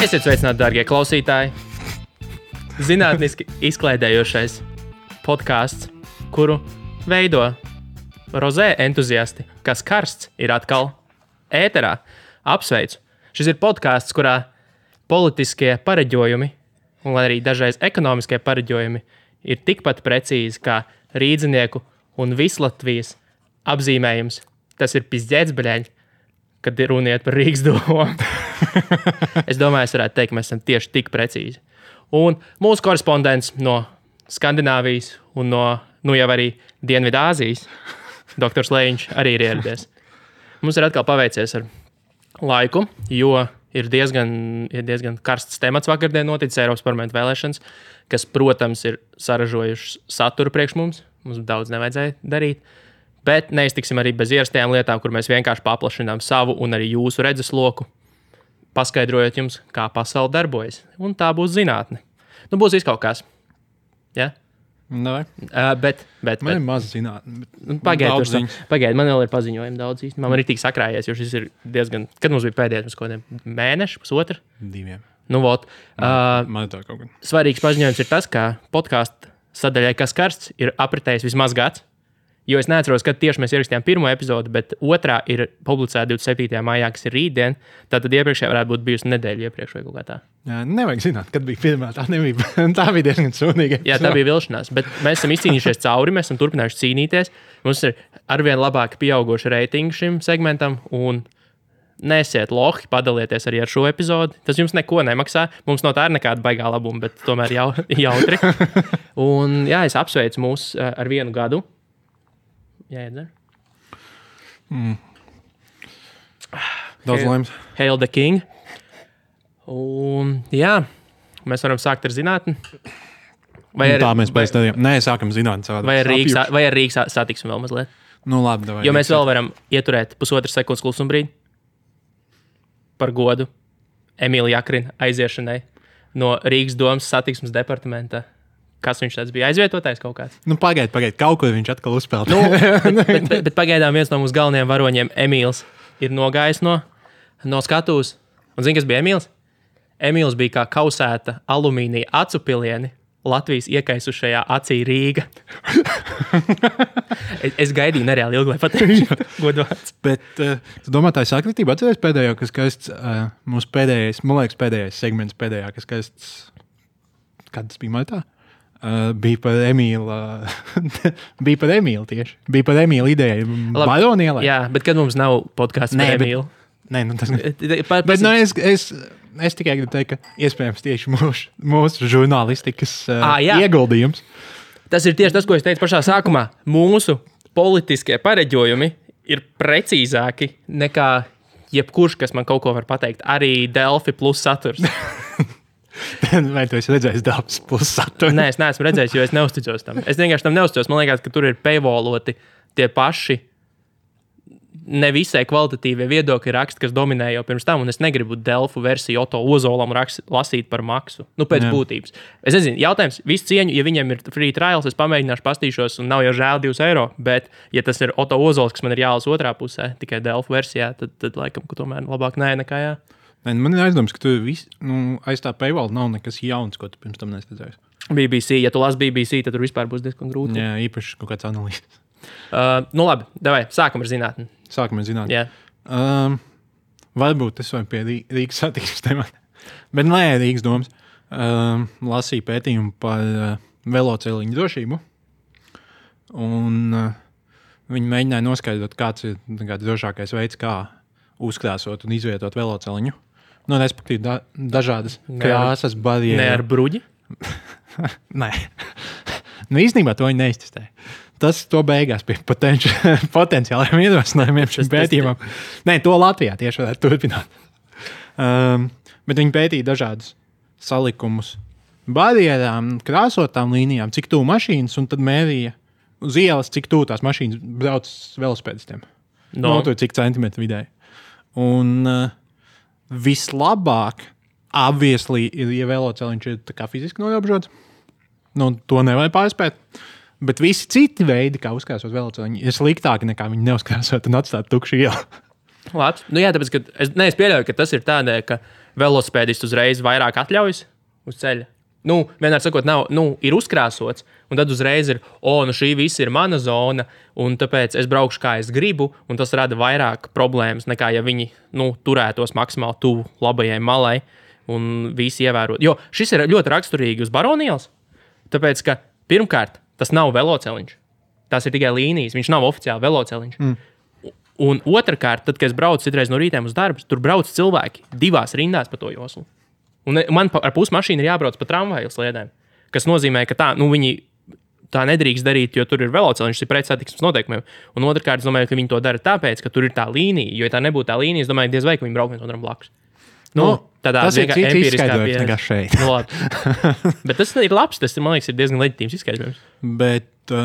Esiet sveicināti, dārgie klausītāji. Zinātniski izklaidējošais podcasts, kuru veido rozē entuziasti, kas karsts ir atkal ēterā. Apsveicu. Šis ir podcasts, kurā politiskie pareģojumi un arī dažreiz ekonomiskie pareģojumi ir tikpat precīzi kā rīdzinieku un Vislatvijas apzīmējums. Tas ir pizdzēts, bļaļ, kad runiet par Rīgas domu. Es domāju, es varētu teikt, ka mēs esam tieši tik precīzi. Un mūsu korespondents no Skandināvijas un no, jau arī Dienvidāzijas, doktors Lejiņš, arī ir ieradies. Mums ir atkal paveicies ar laiku, jo ir diezgan karsts temats vakardien noticis Eiropas parlamenta vēlēšanas, kas, protams, ir saražojušas saturu priekš mums. Mums daudz nevajadzēja darīt. Bet neiztiksim arī bez ierastajām lietām, kur mēs vienkārši paplašinām savu un arī jūsu redzesloku, paskaidrojot jums, kā pasaule darbojas. Un tā būs zinātne. Būs kaut kas. Ja? Nevai. Bet man ir maz zinātne. Pagaid, man vēl ir paziņojumi daudz īstenībā. Man ir tik sakrājies, jo šis ir diezgan... Kad mums bija pēdējais, kaut kādiem mēneši, pusotru? 2. Man ir tā kaut gan. Svarīgs paziņojums ir tas, ka podkāstu sadaļai, kas karsts, ir apritējis vismaz gads. Jo es neatceros, kad tieši mēs ierakstījām pirmo epizodi, bet otrā ir publicēta 27. maijā, kas ir rītdien. Tātad iepriekšējā varētu būt bijusi nedēļa iepriekš vai kaut kā tā. Jā, nevajag zināt, kad bija pirmā. Tā bija diezgan sūdīga. Jā, tā bija vilšanās, bet mēs esam izcīnījušies cauri, mēs esam turpinājuši cīnīties. Mums ir arvien labāk pieauguši reitingi šim segmentam un nesiet lohi, padalieties arī ar šo epizodi. Tas jums neko nemaksā. Mums no tā ir nekāda baigā labuma, bet tomēr jautri. Un jā, es apsveicu mūs ar 1 gadu. Jā, iedzer. Daudz laimes. Hail the King. Un jā, mēs varam sākt ar zinātni. Tā mēs pēc tādiem. Nē, sākam zinātni savādāk. Vai ar Rīgas satiksim vēl mazliet? Labi, davai. Jo mēs vēl varam ieturēt pusotru sekundes klusumbrīdi par godu Emīla Jakrina aiziešanai no Rīgas domas satiksmes departamenta. Kas viņš tāds bija? Aizvietotājs kaut kāds? Pagaid. Kaut ko viņš atkal uzspēlē. bet pagaidām viens no mūsu galvenajiem varoņiem, Emīls, ir nogājis no skatuves. Un zini, kas bija Emīls? Emīls bija kā kausēta alumīnija acu pilieni Latvijas iekaisušajā acī Rīga. Es gaidīju nereāli ilgi, lai pateiktu godvārds. Bet tu domā, tā ir sakritība? Atceries pēdējo, kas skaists, mūsu pēdējais, man liekas, pēdējais segments pēdējā, kas skaists, kad tas bija maitā? Bija par Emīlu tieši. Bija par Emīlu ideju Baronielai. Jā, bet kad mums nav podcasts par Emīlu? Nē, tas bet es tikai gribu teikt, ka iespējams tieši mūsu žurnālistikas ieguldījums. Tas ir tieši tas, ko es teicu pašā sākumā. Mūsu politiskie pareģojumi ir precīzāki nekā jebkurš, kas man kaut ko var pateikt. Arī Delfi plus saturs. Vai tu esi redzējis Delfis plus saturu? Nē, es neesmu redzējis, jo es neusticos tam. Es vienkārši tam neusticos. Man liekas, ka tur ir paywalloti tie paši nevisai kvalitatīvie viedokļi raksti, kas dominē jau pirms tam, un es negribu Delfu versiju Oto Ozolam lasīt par maksu. Pēc būtības. Es nezinu, jautājums, visu cieņu, ja viņiem ir free trials, es pamēģināšu pastīšos, un nav jau žēl 2 eiro, bet ja tas ir Oto Ozols, kas man ir jālasa otrā pusē, tikai Delfu versijā, tad laikam, ka tomēr labāk nē nekā jā. Man ir aizdoms, ka tu aiz tā paywall nav nekas jauns, ko tu pirms tam nesadzējis. BBC, ja tu lasi BBC, tad tur vispār būs diezgan grūti. Jā, īpaši kaut kāds analīzes. Labi, davai, sākam ar zinātni. Jā. Varbūt es vai pie Rīgas satiksmes temata. Bet nē, Rīgas domas. Lasīju pētījumu par veloceliņu drošību. Un viņi mēģināja noskaidrot, kāds ir drošākais veids, kā uzkrāsot un izvietot veloceliņu. Respektīvi, dažādas krāsas, barjeras. Ne ar bruģi? Nē. Īstenībā to viņi neiztestēja. Tas to beigās pie potenciālajiem ierosinājumiem šim pētījumam. Nē, to Latvijā tieši varētu turpināt. Bet viņi pētīja dažādus salikumus barjerām, krāsotām līnijām, cik tuvu mašīnas, un tad mērīja uz ielas, cik tuvu tās mašīnas brauc velosipēdistiem. Cik centimetru vidēji. Un vislabāk, obviously, ir, ja veloceliņš ir tā kā fiziski noierobežots. To nevajag pārspēt. Bet visi citi veidi, kā uzkrāsot veloceliņu, ir sliktāki nekā viņi neuzkrāsot un atstāt tukšu ielu. Labs. Jā, tāpēc, ka es pieļauju, ka tas ir tādēļ, ka velosipēdists uzreiz vairāk atļaujas uz ceļa. Nu, vienmēr sakot, nav, ir uzkrāsots, un tad uzreiz ir, šī viss ir mana zona, un tāpēc es braukšu, kā es gribu, un tas rada vairāk problēmas, nekā ja viņi turētos maksimāli tuvu labajai malai, un visi ievērot. Jo šis ir ļoti raksturīgi uz Baronielas, tāpēc, ka pirmkārt, tas nav veloceliņš. Tas ir tikai līnijas, viņš nav oficiāli veloceliņš. Un otrkārt, tad, kad es braucu citreiz no rītiem uz darbu, tur brauc cilvēki 2 rindās pa to joslu. Un man ar pusi mašīnu ir jābrauc pa tramvaju sliedēm, kas nozīmē, ka viņi tā nedrīkst darīt, jo tur ir veloceliņš, tas ir pret satiksmes noteikumiem. Un otrkārt, es domāju, ka viņi to dara tāpēc, ka tur ir tā līnija, jo ja tā nebūtu tā līnija, es domāju, diez vai, ka viņi brauk viens otram blakus. Tādā tas ir cits izskaidrojums nekā šeit. Bet tas ir labs, tas, man liekas, ir diezgan leģitīms izskaidrojums. Bet,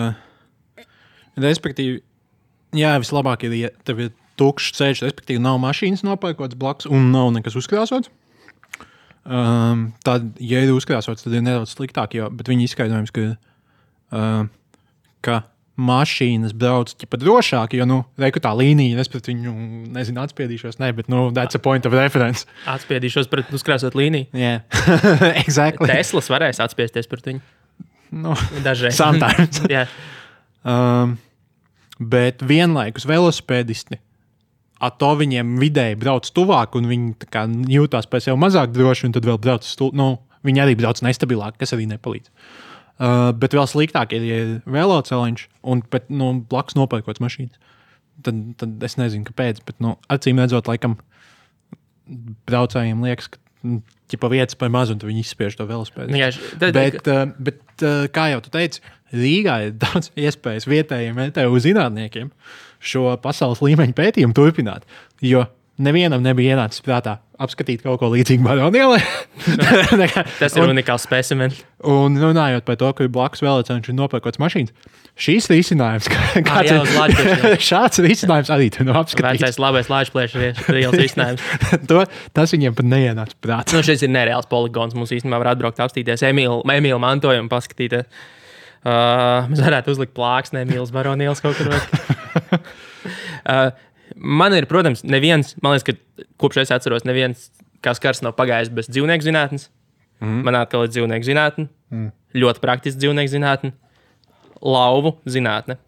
respektīvi, jā, vislabāk ir, ja tev ir tukšs ceļš, respektīvi nav mašīnas nopērkots blakus un nav nekas uzkrāsots. Tad, ja ir uzkrāsots, tad ir nedaudz sliktāk, bet viņi izskaidrojums, ka mašīnas brauc ķipa drošāk, jo, reiku tā līnija, es pret viņu, atspiedīšos, bet, that's a point of reference. Atspiedīšos pret uzkrāsot līniju? Jā, exactly. Teslas varēs atspiesties pret viņu? Dažreiz. Sometimes. Jā. Bet vienlaikus velosipēdisti, to viņiem vidēji brauc tuvāk, un viņi jūtās pēc sev mazāk droši, un tad vēl brauc viņi arī brauc nestabilāk, kas arī nepalīdz. Bet vēl sliktāk ir, ja ir veloceliņš, un blakus nopērkots mašīnas. Tad es nezinu, kāpēc, bet acīm redzot, laikam braucējiem liekas, ka vietas par maz, un tad viņi izspiež to velosipēdu. Bet kā jau tu teici, Rīgā ir daudz iespējas vietējiem MTU zinātniekiem šo pasaules līmeņa pētījumu turpināt, jo nevienam nebija ienācis prātā apskatīt kaut ko līdzīgu Baronielai. Tas ir unikāls specimens. Un runājot par to, ka ir blakus velosipēdiņš un nopērkots mašīnas, šīs risinājums, šāds risinājums arī tu apskatīt. Vecais labais lāčplēšs ir risinājums. Tas viņiem pat neienāca prātā. Šis ir nereāls poligons. Mums īstenībā var atbraukt apstīties Emīla mantojumu paskatīties. Mēs varētu uzlikt plāksni Emīlas Baronielas kaut kur. Man ir, protams, man liekas, ka kopš es atceros, neviens kā skars nav pagājis bez dzīvnieku zinātnes. Man atkal ir dzīvnieku zinātne. Ļoti praktiski dzīvnieku zinātne. Lauvu zinātne.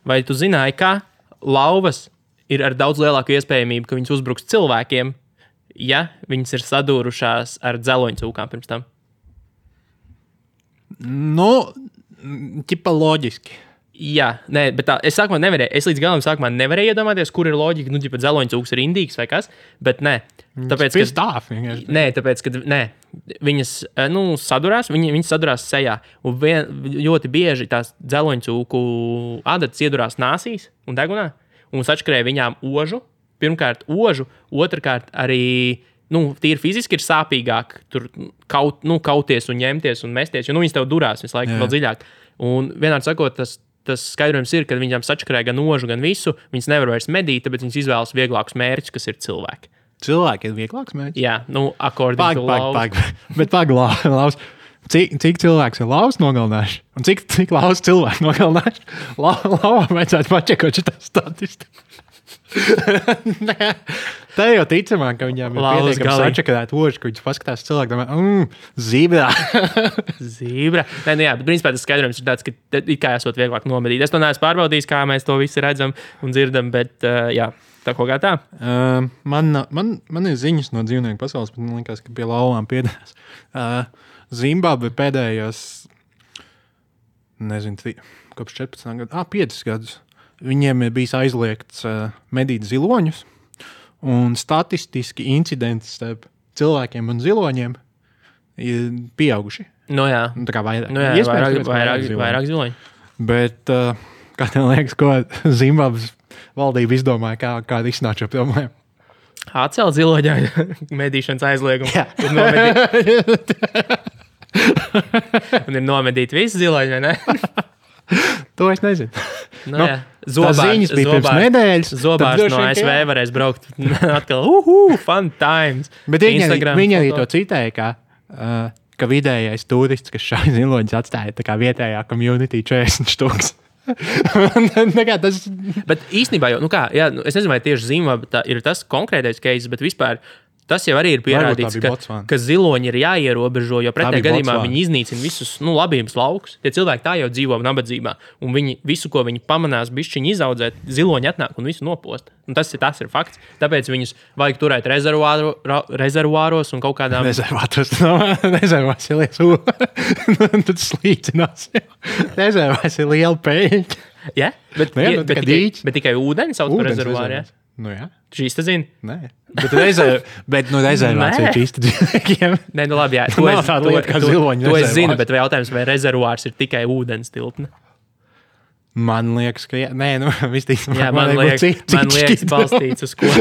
Vai tu zināji, ka lauvas ir ar daudz lielāku iespējamību, ka viņas uzbruks cilvēkiem, ja viņas ir sadūrušās ar dzeloņcūkām pirms tam? Ķipa loģiski. Jā, bet es līdz galam sākumā nevarēju iedomāties, kur ir loģika, dzeloņcūks ir indīgs vai kas, bet nē. Tāpēc, ka viņas sadurās, viņas sadurās sejā, un ļoti bieži tās dzeloņcūku adatas iedurās nāsīs un degunā, un sačkarēja viņām ožu, pirmkārt ožu, otrkārt arī, tīri fiziski ir sāpīgāk tur kauties un ņemties un mesties, jo viņas tev durās visu laiku vēl dziļāk. Un vienādi sakot, tas skaidrojums ir, ka viņām sačkarēja gan ožu, gan visu, viņas nevar vairs medīt, tāpēc viņas izvēlas vieglākus mērķus, kas ir cilvēki. Cilvēki ir vieglāks mērķis? Jā, according to lauvas. Bet lauvas. Cik cilvēks ir lauvas nogalinājuši? Un cik lauvas cilvēku nogalinājuši? Lauvam vajadzētu pačekot šitā statistiku. Tā jau ticamāk, ka viņām ir pietiekami sačakarēt oži, ka viņas paskatās cilvēku, domā, zībrā. Zībrā. Jā, bet principā tas skaidrojums ir tāds, ka kā esot vieglāk nomedīt. Es to neesmu pārbaudījis, kā mēs to visi redzam un dzirdam, bet jā, tā kaut kā tā. Man ir ziņas no dzīvnieku pasaules, bet man liekas, ka pie lauvām piedās. Zimbabve pēdējos, kopš 14 gadu, 5 gadus. Viņiem ir bijis aizliegts medīt ziloņus, un statistiski incidenti starp cilvēkiem un ziloņiem ir pieauguši. Jā. Tā kā vairāk. Vairāk ziloņu. Bet, kā tev liekas, ko Zimbabves valdība izdomāja, kā risināt šo problēmu? Atcelt ziloņā medīšanas aizliegumu. Jā. Un ir nomedīt visu ziloņu, vai ne? To es nezinu. Ziņas bija pirms nedēļas. Zobārs no ASV varēs braukt atkal. Fun times. Bet viņi arī to citēja, ka vidējais turists, kas šai ziloņus atstāja, tā kā vietējā community 40 štuks. Bet īstenībā jau, es nezinu, vai tieši Zimbabve ir tas konkrētais case, bet vispār Tas jau arī ir pierādīts, ka ziloņi ir jāierobežo, jo pretējā gadījumā viņi iznīcina visus labības laukus. Tie cilvēki tā jau dzīvo nabadzībā, un viņi visu, ko viņi pamanās, bišķiņi izaudzēt, ziloņi atnāk un visu nopost. Un tas ir fakts. Tāpēc viņus vajag turēt rezervuāros un kaut kādām... Rezervās ir liels tad slīcinās. Rezervās ir liela peļņa. Ja? Bet tikai ūdeni sauc par rezervuāru, ja? Nu jā. Šīs te zini? Nē. Bet rezervācija ir čista dzīvniekiem. Nē, nu labi, jā. To es zinu, bet jautājums, vai rezervuārs ir tikai ūdens tilpne? Man liekas, ka jā. Nē, nu, visticamāk. Jā, man liekas balstīts uz ko.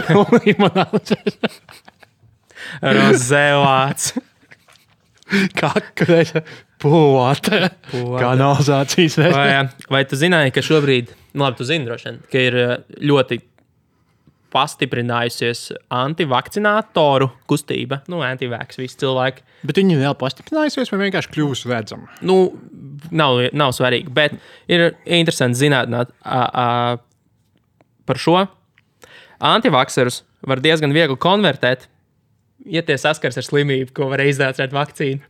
Rozevāts. Kakreša pūvāta. Kanalizācijas vērtē. Vai tu zināji, ka šobrīd, nu labi, tu zini droši vien, ka ir ļoti pastiprinājusies antivakcinātoru kustība, antivaks visi cilvēki. Bet viņi vēl pastiprinājusies vai vienkārši kļūs redzami? Nu, nav svarīgi, bet ir interesanti zināt par šo. Antivakserus var diezgan viegli konvertēt, ja tie saskars ar slimību, ko var izdācēt vakcīnu.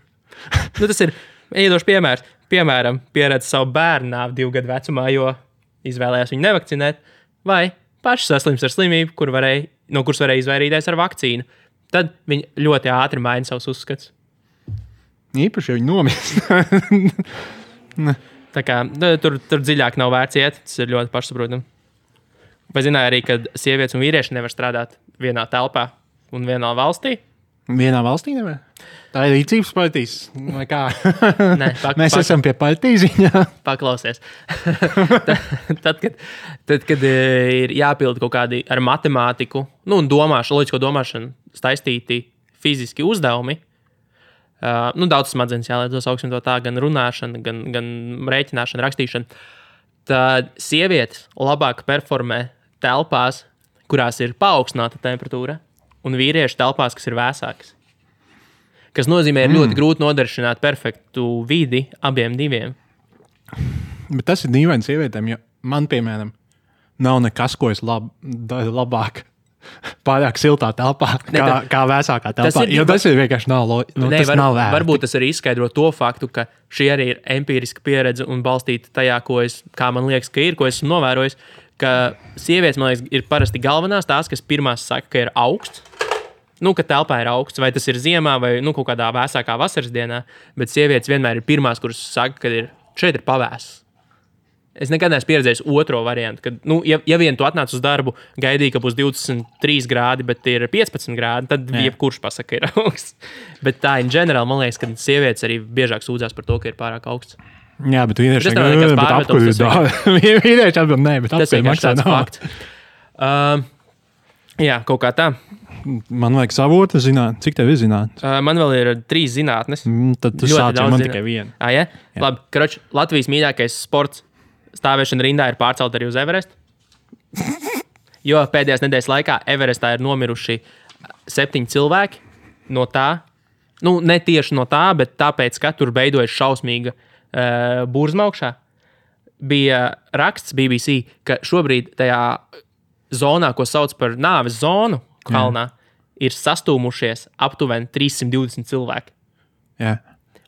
Nu, tas ir iedošs piemērs. Piemēram, pieredz savu bērnu nāvi 2 gadu vecumā, jo izvēlējās viņu nevakcinēt, vai paši saslims ar slimību, no kuras varēja izvairīties ar vakcīnu. Tad viņi ļoti ātri maina savus uzskats. Īpaši, ja viņi nomirst. Tā kā tur dziļāk nav vērts iet, tas ir ļoti pašsaprotami. Vai zināja arī, ka sievietes un vīrieši nevar strādāt vienā telpā un vienā valstī? Vienā valstī nevar? Tā ir rīcības partijas, vai kā? Nē, Mēs esam pie partijas ziņā. Paklausies. tad, kad ir jāpild kaut kādi ar matemātiku, un loģisko domāšanu saistīti fiziski uzdevumi, daudz smadzenes jāliedz augšņi to tā, gan runāšana, gan rēķināšana, rakstīšana, tad sievietes labāk performē telpās, kurās ir paaugstināta temperatūra, un vīrieši telpās, kas ir vēsākas. Kas nozīmē, ir ļoti grūti nodrošināt perfektu vidi abiem diviem. Bet tas ir dīvaini sievietēm, jo man, piemēram, nav nekas, ko es labāk pārāk siltā telpā, kā vēsākā telpā. Tas ir vienkārši nav vērts. Varbūt tas arī izskaidro to faktu, ka šī arī ir empiriska pieredze un balstīta tajā, kā man liekas, ka ir, ko esmu novērojis, ka sievietes, man liekas, ir parasti galvenās tās, kas pirmās saka, ka ir augsts. Ka telpā ir augsts, vai tas ir ziemā, vai kaut kādā vēsākā vasaras dienā, bet sievietes vienmēr ir pirmās, kuras saka, ka šeit ir pavēss. Es nekad neesmu pieredzējis otro variantu, kad, ja vien tu atnāc uz darbu, gaidīji, ka būs 23 grādi, bet ir 15 grādi, tad jebkurš pasaka, ka ir augsts. Bet tā, in general, man liekas, ka sievietes arī biežāk sūdzās par to, ka ir pārāk augsts. Jā, bet vīrieši atbild, nē, bet tas ir maksā nav. Fakts. Jā, kaut kā tā. Man vajag savotu zināt. Cik tev ir zināt? Man vēl ir 3 zinātnes. Tad tu sāc, man tikai viena. Ja? Labi, karoči, Latvijas mīļākais sports stāvēšana rindā ir pārcelt arī uz Everestu. Jo pēdējās nedēļas laikā Everestā ir nomiruši 7 cilvēki no tā. Ne tieši no tā, bet tāpēc, ka tur beidojas šausmīga burzma augšā. Bija raksts BBC, ka šobrīd tajā zonā, ko sauc par nāves zonu, kalnā, ir sastūmušies aptuveni 320 cilvēki. Jā.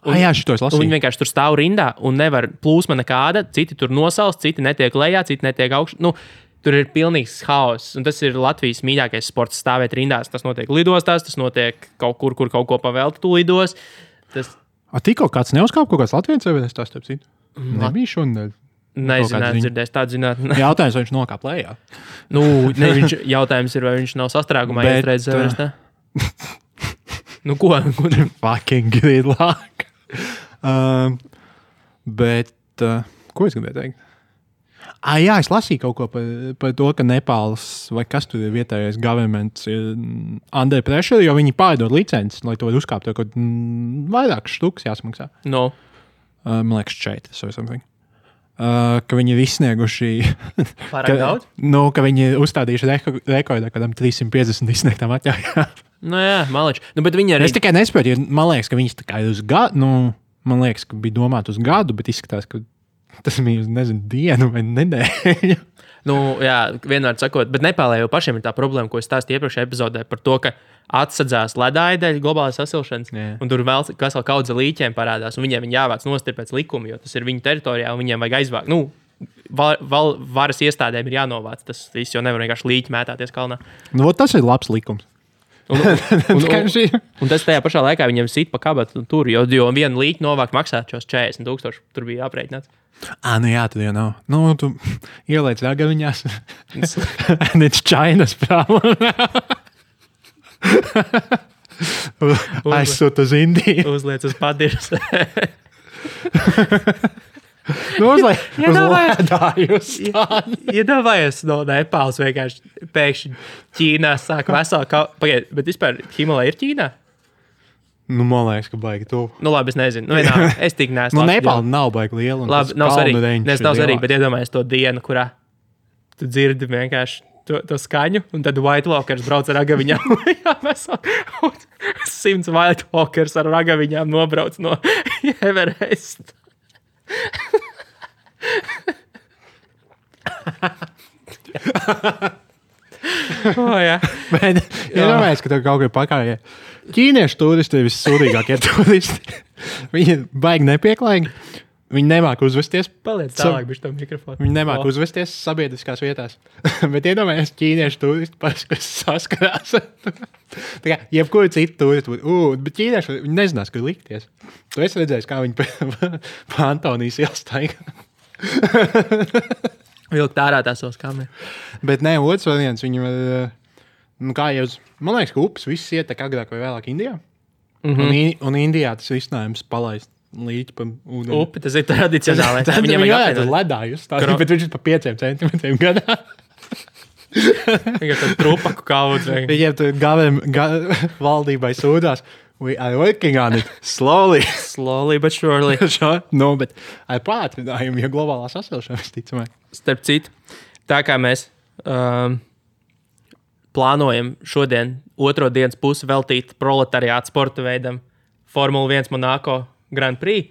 Jā, šito es lasīju. Viņi vienkārši tur stāv rindā un nevar plūsma nekāda. Citi tur nosalst, citi netiek lejā, citi netiek augšā. Tur ir pilnīgs haoss. Un tas ir Latvijas mīļākais sports stāvēt rindās. Tas notiek lidostās, tas notiek kaut kur kaut ko pavēlt tu lidos. Tikko kāds neuzkāp kaut kāds Latvijas Everestā, starp citu? Nebija šodien. Nezinu, dzirdēs tādu zinātni. Jautājums, vai viņš nokāp lejā? Jautājums ir, vai viņš nav sastrēgumā iestrēdzis Everestā. Ko? Fucking good luck. Ko es gribēju teikt? Jā, es lasīju kaut ko par to, ka Nepāls vai kas tur ir vietējais governments ir under pressure, jo viņi pārdod licences, lai to var uzkāpt. Vairākas štukas jāsmaksā. No. Man liekas, 4 vai something. Ka viņi ir izsnieguši pārāk daudz? Ka viņi ir uzstādījuši rekordā kādam 350 izsniegtām atļaujām. Jā, maliči. Bet viņi arī... Es tikai nespēju, jo man liekas, ka viņas tā kā ir uz gadu, man liekas, ka bija domāta uz gadu, bet izskatās, ka Tas bija, nezinu, dienu vai nedēļu. Nu, jā, vienmēr sakot, bet Nepālē jau pašiem ir tā problēma, ko es stāstīju iepriekšējā epizodē par to, ka atsadzās ledāja dēļ globālās sasilšanas, un tur vēl kaudze līķiem parādās, un viņiem jāvāc nost pēc likuma, jo tas ir viņu teritorijā, un viņiem vajag aizvākt. Nu, varas iestādēm ir jānovāc tas viss, jo nevar vienkārši līķi mētāties kalnā. Nu, tas ir labs likums. Un tas tajā pašā laikā viņiem sit pa kabatu tur, jo vienu līķi novākt maksāt šos 40,000, tur bija aprēķināts. Nu jā, tad jau nav. Nu, tu ieliec ragaviņās. And it's China's problem. Aizsūt uz Indiju. Uzliec uz padirs. Iedomājies no Nepāles vienkārši pēkšņi Ķīnā sāk veselu pagaid, bet vispār Himalaya ir Ķīnā? Nu, man liekas, ka baigi tu. Nu, labi, es nezinu. Nu, vienā, es tik neesmu. Nu, Nepāla nav baigi liela. Labi, nav svarīgi, bet iedomājies to dienu, kurā tu dzirdi vienkārši to skaņu, un tad White Walkers brauc ar ragaviņām. Jā, mēs 100 White Walkers ar ragaviņām nobrauc no Everest. Jā. Bet iedomājies, ka tev kaut kā pakājē. Ķīniešu turisti ir vissūdīgākie turisti. Viņi baigi nepieklājīgi. Viņi nemāk uzvesties. Paliec tālāk, bišķi tam mikrofonu. Viņi nemāk uzvesties sabiedriskās vietās. Bet iedomājies ķīniešu turisti, kas saskarās. Tā kā jebkuri citi turisti būtu. Bet ķīnieši, viņi nezinās, kur likties. Tu esi redzējis, kā viņi pa Antonijas ielstaigā. Vilkt ārā tās savas kameras. Bet nē, otrs variants, viņi var, kā jau, man liekas, ka upes viss ietek agrāk vai vēlāk Indijā. Un Indijā tas risinājums palaist līķi pa ūdeni. Upi, tas ir tradicionāli. Viņam varētu ledājus stāstīt, bet viņš ir pa 5 centimetriem gadā. Viņam tad trupaku kaudz. Viņiem tur valdībai sūdās. We are working on it slowly. Slowly but surely. No, bet ar pātrinājumu, jo globālā sasilšana visticamāk. Starp citu, tā kā mēs plānojam šodien otro dienas pusi veltīt proletariāta sporta veidam Formula 1 Monaco Grand Prix,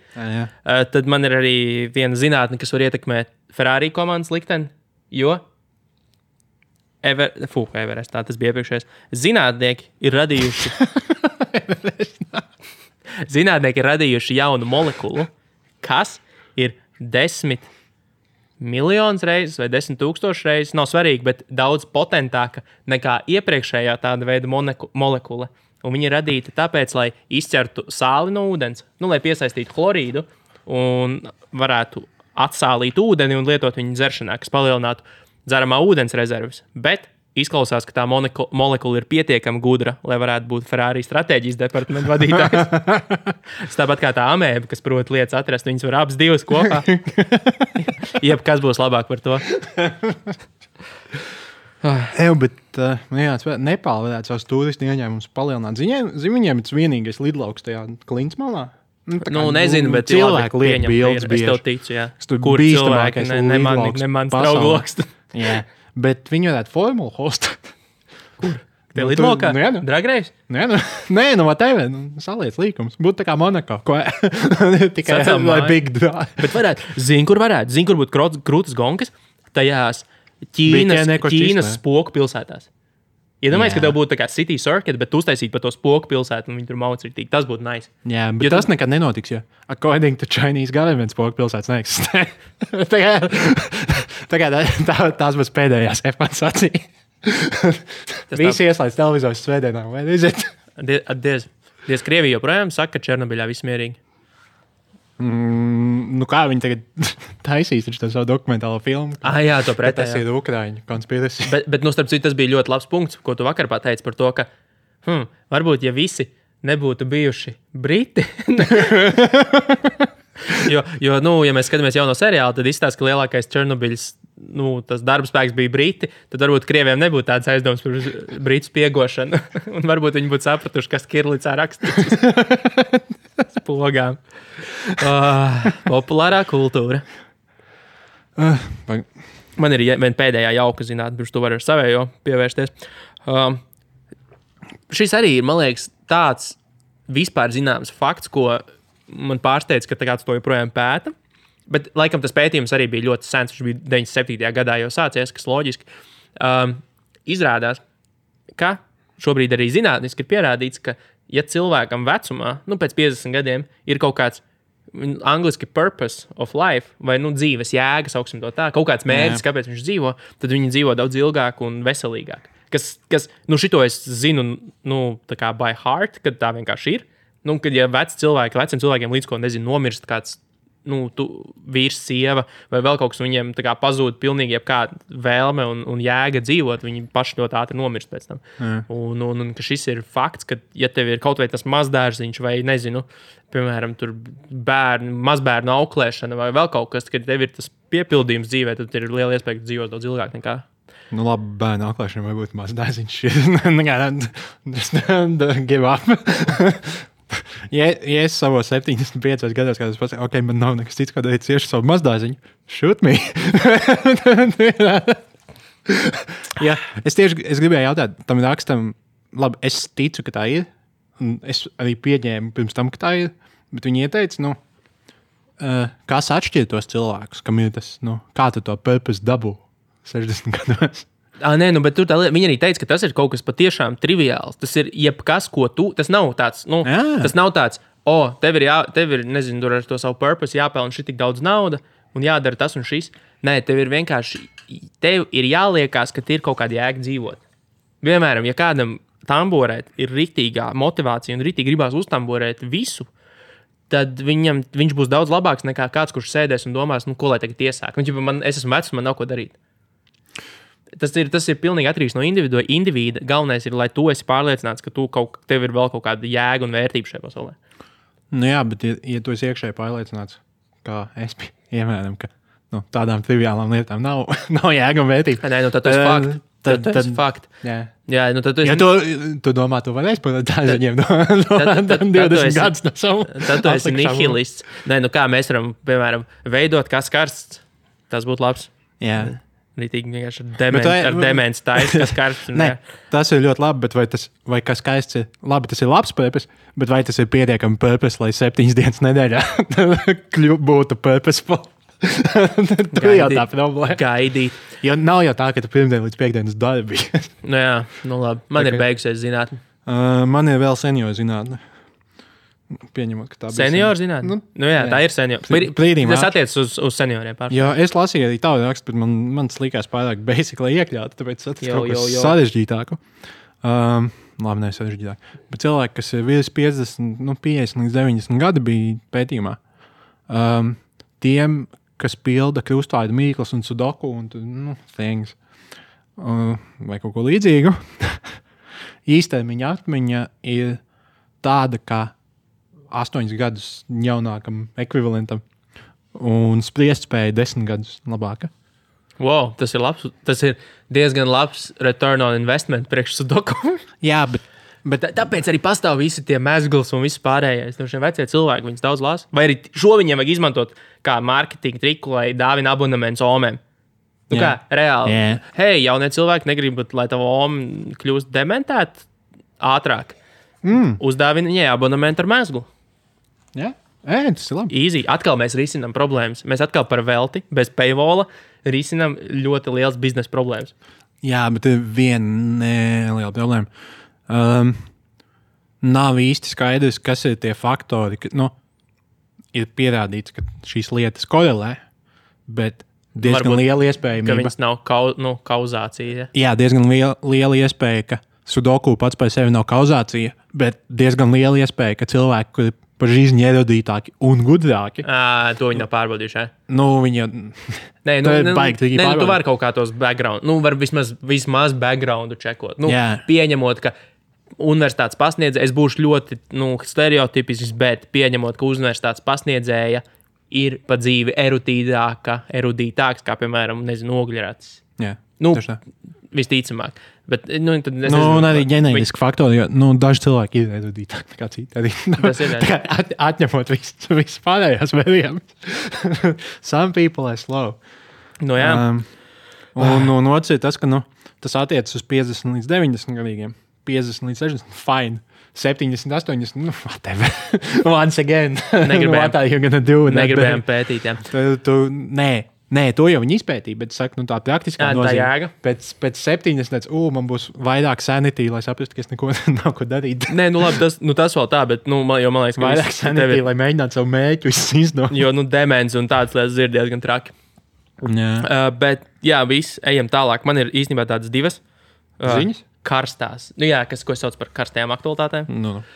tad man ir arī viena zinātne, kas var ietekmēt Ferrari komandas likteni, jo Everest, tā tas bija iepriekšējais. Zinātnieki ir radījuši jaunu molekulu, kas ir 10 miljonus reizes vai 10,000 reizes, nav svarīgi, bet daudz potentāka nekā iepriekšējā tāda veida molekula. Un viņi ir radīti tāpēc, lai izķertu sāli no ūdens, lai piesaistītu chlorīdu un varētu atsālīt ūdeni un lietot viņu dzeršanā, kas palielinātu dzeramā ūdens rezerves. Bet izklausās, ka tā molekula ir pietiekami gudra, lai varētu būt Ferrari stratēģijas departamenta vadītājs. Tāpat kā tā amēba, kas prot lietas atrast, viņas var abas divas kopā. Jebkas būs labāk par to. Bet Nepāla varētu savus turistu ieņēmumus palielināt. Viņiem ir vienīgais lidlauks tajā Klinsmalā. Nezinu, bet cilvēki liek bildes bieži. Es tev ticu, jā. Kur cilvēki nemans draugloks. Jā, bet viņi varētu formulu hostēt. Kur? Tie lidlaukā? Dragreis? Nē, whatever. Saliec līkums. Būtu tā kā Monaco. Tikai lai big drive. Bet varētu. Zini, kur būtu krūtas gonkas? Tajās Ķīnas spoku pilsētās. Iedomājies, ka tev būtu tā kā city circuit, bet tu uztaisītu pa to spoku pilsētu un viņi tur maucritīgi. Tas būtu nice. Jā, bet tas nekad nenotiks, jo according to Chinese government spoku pilsētas neeksistē. Tās būs pēdējās F1 sacīja. Visi ieslēdz televizors svētdienā, vai nezinu? Diez Krievija joprojām saka, ka Černobiļā viss mierīgi. Kā viņi tagad taisīs savu dokumentālo filmu? Jā, to pretēji. Tas ir Ukraiņu konspirācija. Bet starp citu, tas bija ļoti labs punkts, ko tu vakar pateici par to, ka varbūt, ja visi nebūtu bijuši briti, jo, ja mēs skatāmies jauno seriālu, tad izstāsta, ka lielākais Černobiļs, tas darbspēks bija briti, tad varbūt Krieviem nebūtu tāds aizdoms par britu spiegošanu, un varbūt viņi būtu sapratuši, kas Kirlicā rakstīts. Spogām. Populārā kultūra. Man ir viena pēdējā jauka zinātne, pirms tu vari ar savējo pievērsties. Šis arī ir, man liekas, tāds vispār zināms fakts, ko man pārsteidz, ka tagad to joprojām pēta. Bet, laikam, tas pētījums arī bija ļoti sens. Viņš bija 97. gadā jau sācies, kas loģiski. Izrādās, ka šobrīd arī zinātniski ir pierādīts, ka, ja cilvēkam vecumā, pēc 50 gadiem, ir kaut kāds angliski purpose of life, vai dzīves jēga, sauksim to tā, kaut kāds mērķis, kāpēc viņš dzīvo, tad viņi dzīvo daudz ilgāk un veselīgāk. Kas šito es zinu, tā kā by heart, kad tā vienkārši ir. Kad ja veciem cilvēkiem līdz ko, nomirst kāds, vīrs, sieva vai vēl kaut kas, viņiem tā kā pazūd pilnīgi jebkāda vēlme un jēga dzīvot, viņi paši ļoti ātri nomirst pēc tam. Un ka šis ir fakts, ka, ja tev ir kaut vai tas mazdārziņš vai, piemēram, tur mazbērnu auklēšana vai vēl kaut kas, kad tev ir tas piepildījums dzīvē, tad ir liela iespēja, ka dzīvos daudz ilgāk nekā. Labi, bērnu auklēšana vai būtu mazdārziņš. Give up. Ja es savos 75 gados, kad es pasaku, ok, man nav nekas cits, ko darīt cieši savu mazdārziņu, shoot me. Jā, es gribēju jautāt, tam rakstam, labi, es ticu, ka tā ir, un es arī pieņēmu pirms tam, ka tā ir, bet viņi ieteica, kas atšķir tos cilvēkus, kam ir tas, kā tu to purpose dabū 60 gados. Nē, bet viņi arī teica, ka tas ir kaut kas patiešām triviāls. Tas ir jebkas, ko tu. Tas nav tāds, tas nav tāds, tev ir, tur ar to savu purpose jāpelna šī tik daudz nauda un jādara tas un šis. Nē, tev ir vienkārši, tev ir jāliekās, ka ir kaut kāda jēga dzīvot. Piemēram, ja kādam tamborēt ir riktīgā motivācija un riktīgi gribās uztamborēt visu, tad viņš būs daudz labāks nekā kāds, kurš sēdēs un domās, ko lai tagad iesāk. Es esmu vecs, man nav ko darīt. Tas ir pilnīgi atkarīgs no individa. Galvenais ir, lai tu esi pārliecināts, ka tev ir vēl kaut kāda jēga un vērtība šajā pasaulē. Jā, bet ja tu esi iekšēji pārliecināts, kā es piemēram, ka tādām triviālām lietām nav jēga un vērtība. Nē, tad tas ir fakts. Tas ir fakts. Jā, tad tu esi... Ja tu domā, tu varēsi par tādiem 20 gadus no savu. Tad tu esi nihilists. Nē, kā mēs varam, piemēram, veidot kas karsts, tas būtu labs. Jā. Rītīgi vienkārši ar demens taisa, kas karsts. Nē, tas ir ļoti labi, bet vai kas skaists ir? Labi, tas ir labs purpose, bet vai tas ir pietiekami purpose, lai 7 dienas nedēļā būtu purposeful? Tur jau tā problēma. Gaidīt. Jo nav jau tā, ka tu pirmdien līdz piekdienas darbi. Jā, labi. Man ir beigusies zinātne. Man ir vēl senioru zinātne. Pieņemot, ka tā bija senioru zinātne. Jā, tā ir senioru. Tas attiecas uz senioriem pārsvarā. Jā, es lasīju arī tādu rakstu, bet man likās pārāk basic, lai iekļautu, tāpēc tas kaut kas sarežģītāku. Labi, ne sarežģītāk. Bet cilvēki, kas ir virs 50 līdz 90 gadi bija pētījumā, tiem, kas pilda krustvārdu mīklas un sudoku un things, vai kaut ko līdzīgu, īstermiņa atmiņa ir tāda, kā 8 gadus jaunākam ekvivalentam un spriestspēja 10 gadus labāka. Wow, tas ir labs. Tas ir diezgan labs return on investment priekš sudoku. Jā, bet tāpēc arī pastāv visi tie mezgls un viss pārējais. Šie vecie cilvēki, viņus daudz lās. Vai arī šo viņiem vajag izmantot kā marketinga triku, lai dāvina abonements omēm. Kā, reāli. Yeah. Hei, jaunie cilvēki negrib, lai tava oma kļūst dementēt ātrāk. Uzdāvina viņai abonementu ar mezglu. Jā, tas ir labi. Easy. Atkal mēs risinām problēmas. Mēs atkal par velti, bez paywalla, risinām ļoti liels biznesa problēmas. Jā, bet ir viena neliela problēma. Nav īsti skaidrs, kas ir tie faktori, ka, ir pierādīts, ka šīs lietas korelē, bet diezgan liela iespējamība. Ka viņas nav kauzācija. Jā, diezgan liela iespēja, ka sudoku pats par sevi nav kauzācija, bet diezgan liela iespēja, ka cilvēki, kuri par žīzņi erudītāki un gudrāki. To viņi nav pārbaudījuši. Viņi jau... Tu vari kaut kā tos background, var vismaz backgroundu čekot. Pieņemot, ka universitātes pasniedzēja, es būšu ļoti stereotipisks, bet pieņemot, ka universitātes pasniedzēja ir pa dzīvi erudītāks, kā, piemēram, ogļratis. Jā, visticamāk. Bet, un arī ģenētiski faktori, jo daži cilvēki ir erudītāki nekā citi. Atņemot visu pārējās variantus. Some people are slow. Jā. Un otrs ir tas, ka tas attiecas uz 50 līdz 90 gadīgiem. 50 līdz 60. Fine. 70, 80. Nu, whatever. Once again. What are you gonna do? Negribējām pētīt, jā. Nē, to jau viņi izpētīja, bet saku, tā praktiskā nozīme. Pēc 70, man būs vairāk sanity, lai saprastu, ka es neko nav ko darīt. Nē, nu labi, tas vēl tā, bet, man liekas, ka vairāk sanity, lai mēģinātu savu mērķu izdot. Jo, demens un tādas lietas ir diezgan traki. Bet, jā, viss, ejam tālāk. Man ir īstenībā tādas divas ziņas. Karstās. Nu jā, ko sauc par karstajām aktualitātēm. No.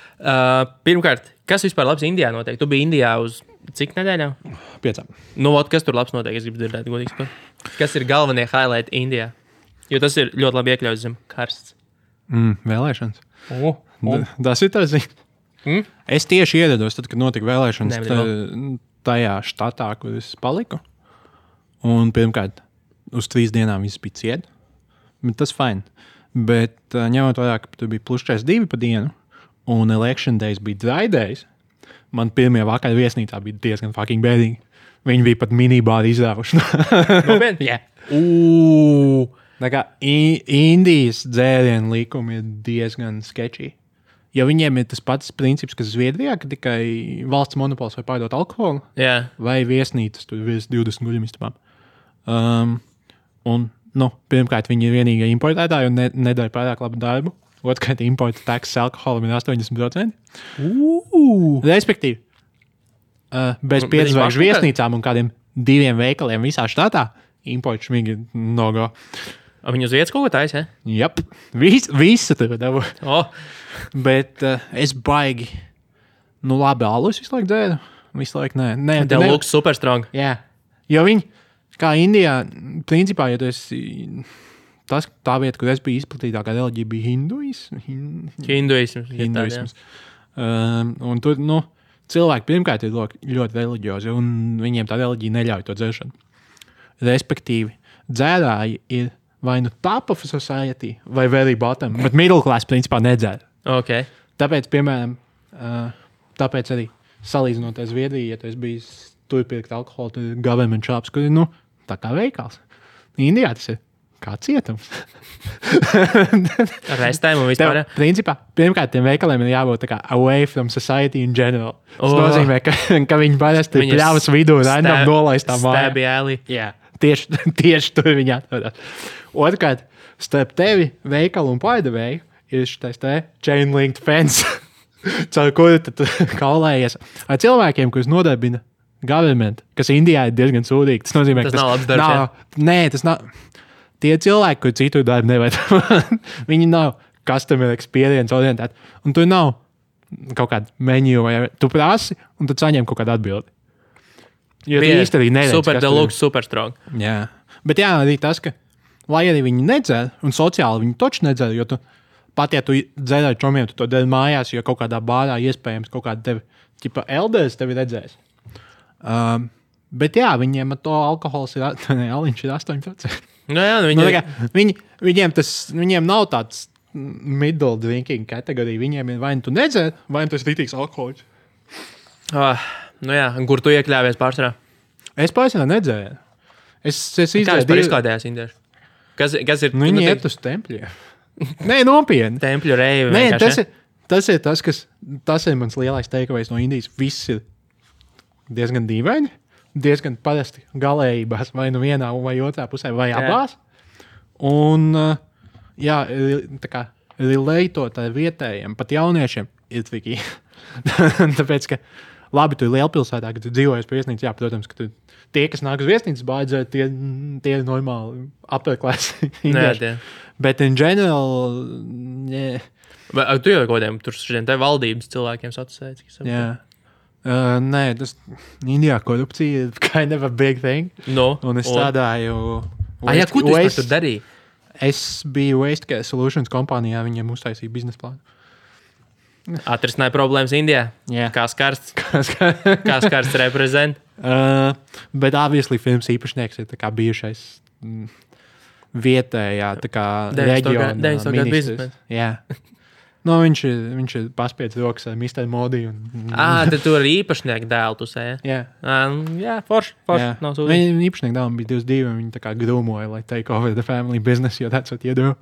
Pirmkārt, kas vispār labs Indijā notiek? Tu biji Indijā uz cik nedēļām? 5. Nu, kas tur labs notiek? Es gribu dzirdēt, godīgi. Kas ir galvenie highlighti Indijā? Jo tas ir ļoti labi iekļauts zem karsts. Vēlēšanas. Tas ir tas ziņas. Es tieši ierados, tad, kad notika vēlēšanas tajā štatā, kur es paliku. Un pirmkārt, uz 3 dienām viss bija ciet. Bet tas fine. Bet ņemot vērā, ka tur bija +42 pa dienu, un election days bija dry days, man pirmie vakar viesnīcā bija diezgan fucking bēdīgi. Viņi bija pat minibāri izrāvuši. Nopietni? Jā. Tā kā Indijas dzērienu likumi ir diezgan sketchy. Ja viņiem ir tas pats princips, kas Zviedrijā, ka tikai valsts monopols var pārdot alkoholu, vai viesnīcas tur virs 20 guļamistabām. Pirmkārt, viņi ir vienīgie importētāji un nedara pārāk labu darbu. Otrkārt, importa taksas alkoholam ir 80%. Respektīvi, bez 5 zvaigžņu viesnīcām un kādiem 2 veikaliem visā štatā importa šmīgi no-go. Viņi uz vietas kaut ko taisa, ja? Jep, visu tur dabu. Bet es baigi, labi, alus visu laiku dzēru. Visu laiku, nē. Tev looks super strong. Jā, jo viņi... Kā Indijā, principā, ja tu esi tā vieta, kur es biju izplatītākā reliģija, bija hinduisms. Un tur, cilvēki pirmkārt ir ļoti reliģiozi, un viņiem tā reliģija neļauj to dzeršanu. Respektīvi, dzērāji ir vai top of society, vai very bottom, bet middle class principā nedzēr. Okay. Tāpēc, piemēram, tāpēc arī salīdzinot ar Zviedriju, ja tu esi bijis tur pirkt alkoholu, tur ir government shops, kur ir, tā kā veikals. Indijā tas ir kā cietums. Restēm un vispār. Principā, pirmkārt, tiem veikaliem ir jābūt tā kā away from society in general. Tas nozīmē, ka viņi parasti ir pļavas vidū random nolaistā mājā. Stabby alley. Jā, tieši tur viņi atrodas. Otrkārt, starp tevi, veikalu un pārdevēju ir šitais chain linked fence, caur kuru tu kaulējies ar cilvēkiem, kurus nodarbina government, kas Indijā ir diezgan sūdīgi. Tas nozīmē, ka tas nav labs darbs. Nē, tas nav. Tie cilvēki, kur citu darbu nevajag. Viņi nav customer experience orientēti. Un tur nav kaut kāda menu, vai tu prasi, un tad saņem kaut kādu atbildi. Jo tu īsti arī neredz. Super deluxe, super strong. Jā. Bet jā, arī tas, ka lai arī viņi nedzer, un sociāli viņi toči nedzer, jo tu pat, ja tu dzer ar čomiem, tu to dari mājās, jo kaut kādā bārā iespējams kaut kāda tevi, elders tevi redzēs. Bet jā, viņiem ar to alkohols ir, aliņš ir 8%. Viņiem nav tāds middle drinking kategorija. Viņiem ir vai nu tu nedzer, vai nu tu esi rītīgs alkoholiķis. Kur tu iekļāvies pārsvarā? Es pārsvarā nedzēru. Es izdzēru. Kā vispār izklaidējās indieši? Kas ir? Viņi iet uz tempļiem. Nē, nopietni. Tempļu reivi. Nē, tas ir tas, tas ir mans lielais takeaways no Indijas. Viss ir diezgan dīvaini, diezgan parasti galējībās, vai nu vienā vai otrā pusē, vai abās. Un, jā, tā kā relētot ar vietējiem, pat jauniešiem ir triki. Tāpēc, ka labi, tu ir lielpilsētā, kad tu dzīvojies pie viesnīcas, jā, protams, ka tie, kas nāk uz viesnīcas bādzē, tie ir normāli upper class indieši. Bet in general, yeah. Tu jau kodiem tur šodien te valdības cilvēkiem sacēs? Jā. Nē, tas Indijā korupcija ir kind of a big thing. Un es strādāju... Ko tu tur darīji? Es biju Waste Care Solutions kompānijā, viņiem uztaisīja biznesa plānu. Atrisināja problēmas Indijā? Jā. Kā skarsts? Kā skarsts reprezent? Bet obviously films īpašnieks ir tā kā bijušais vietējā tā kā reģiona ministrs. Jā. Viņš ir paspiedz rokas ar Mr. Modi. Tad tu ar īpašnieku dēlu tu sēji? Jā. Jā, forši. Viņa īpašnieku dēlam bija 22, un viņi tā kā grūmoja, lai take over the family business, jo that's what you do.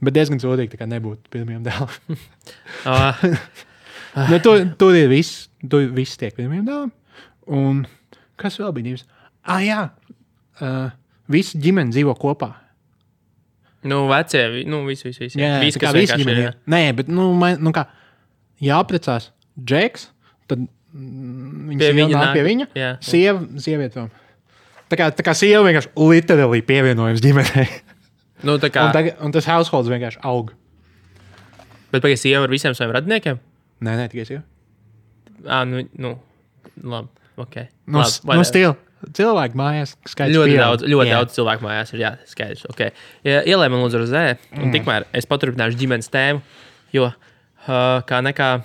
Bet diezgan sodīgi, tā kā nebūtu pirmajam dēlam. Uh, Tur ir viss. Tur viss tiek pirmajam dēlam. Un kas vēl bija divs? Jā. Visi ģimeni dzīvo kopā. Nu, vecie, visi. Jā, visi, kā visi ģimeni. Nē, bet, kā jāprecās Džeks, tad viņa nāk pie viņa. Jā. Sieviete vēl. Tā kā sieva vienkārši literally pievienojums ģimenei. Nu, tā kā... un tas households vienkārši aug. Bet pagaid sieva ar visiem saviem radiniekiem? Nē, tikai sieva. Labi, ok. Stila. Cilvēku mājās skaidrs. Ļoti daudz cilvēku mājās ir, jā, skaidrs. Okay. Ielē man lūdzu rozē, un tikmēr es paturpināšu ģimenes tēmu, jo kā nekā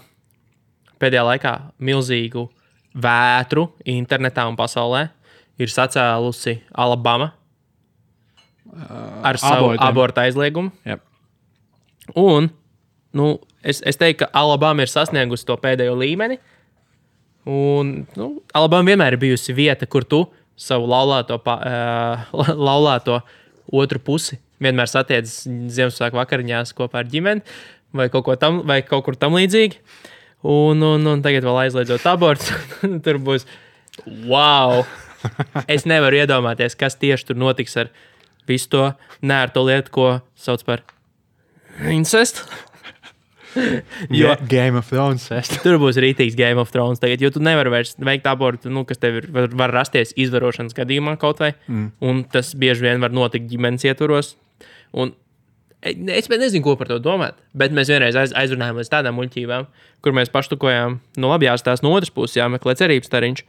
pēdējā laikā milzīgu vētru internetā un pasaulē ir sacēlusi Alabama ar savu abortu aizliegumu. Yep. Un, es teiktu, ka Alabama ir sasniegusi to pēdējo līmeni. Un, Alabama vienmēr ir bijusi vieta, kur tu savu laulāto otru pusi vienmēr satiec Ziemassvētku vakariņās kopā ar ģimeni vai kaut kur tam līdzīgi. Un tagad vēl aizliedzot abortus, tur būs wow! Es nevaru iedomāties, kas tieši tur notiks ar visu to nērto lietu, ko sauc par incestu. Jo Game of Thrones. Tur būs rītīgs Game of Thrones tagad, jo tu nevari vairs veikt abortu, kas tev var rasties izvarošanas gadījumā kaut vai, un tas bieži vien var notikt ģimenes ietvaros. Un es nezinu, ko par to domāt, bet mēs vienreiz aizrunājām līdz tādām muļķībām, kur mēs paštukojām, labi jāstās no otras puses, jāmeklē cerības stariņš.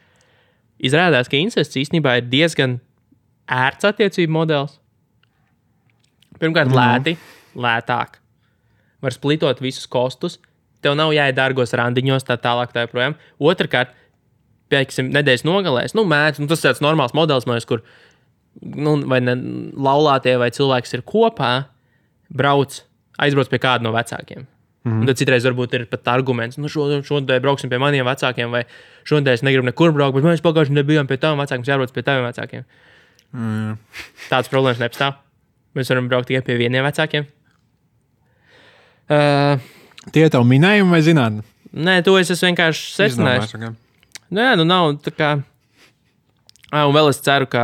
Izrādās, ka incests īstenībā ir diezgan ērts attiecību modelis. Pirmkārt, lētāk. Var splitot visus kostus, tev nav jāiet dārgos randiņos, tā tālāk tā joprojām. Otrakārt, pieksim, nedēļas nogalēs, tas tāds normāls modelis, kur vai ne laulātie vai cilvēks ir kopā, aizbrauc pie kāda no vecākiem. Un tad citreiz varbūt ir pat arguments, šodien brauksim pie maniem vecākiem, vai šodien es negribu nekur braukt, bet mēs pagājuši nebijām pie taviem vecākiem, mums jābrauc pie taviem vecākiem. Tāds problēmas nepastāv. Mēs varam braukt tikai pie vieniem vecākiem. Tie tev minējumi vai zinātni? Nē, to es vienkārši secināju. Nav tā kā... Un vēl es ceru, ka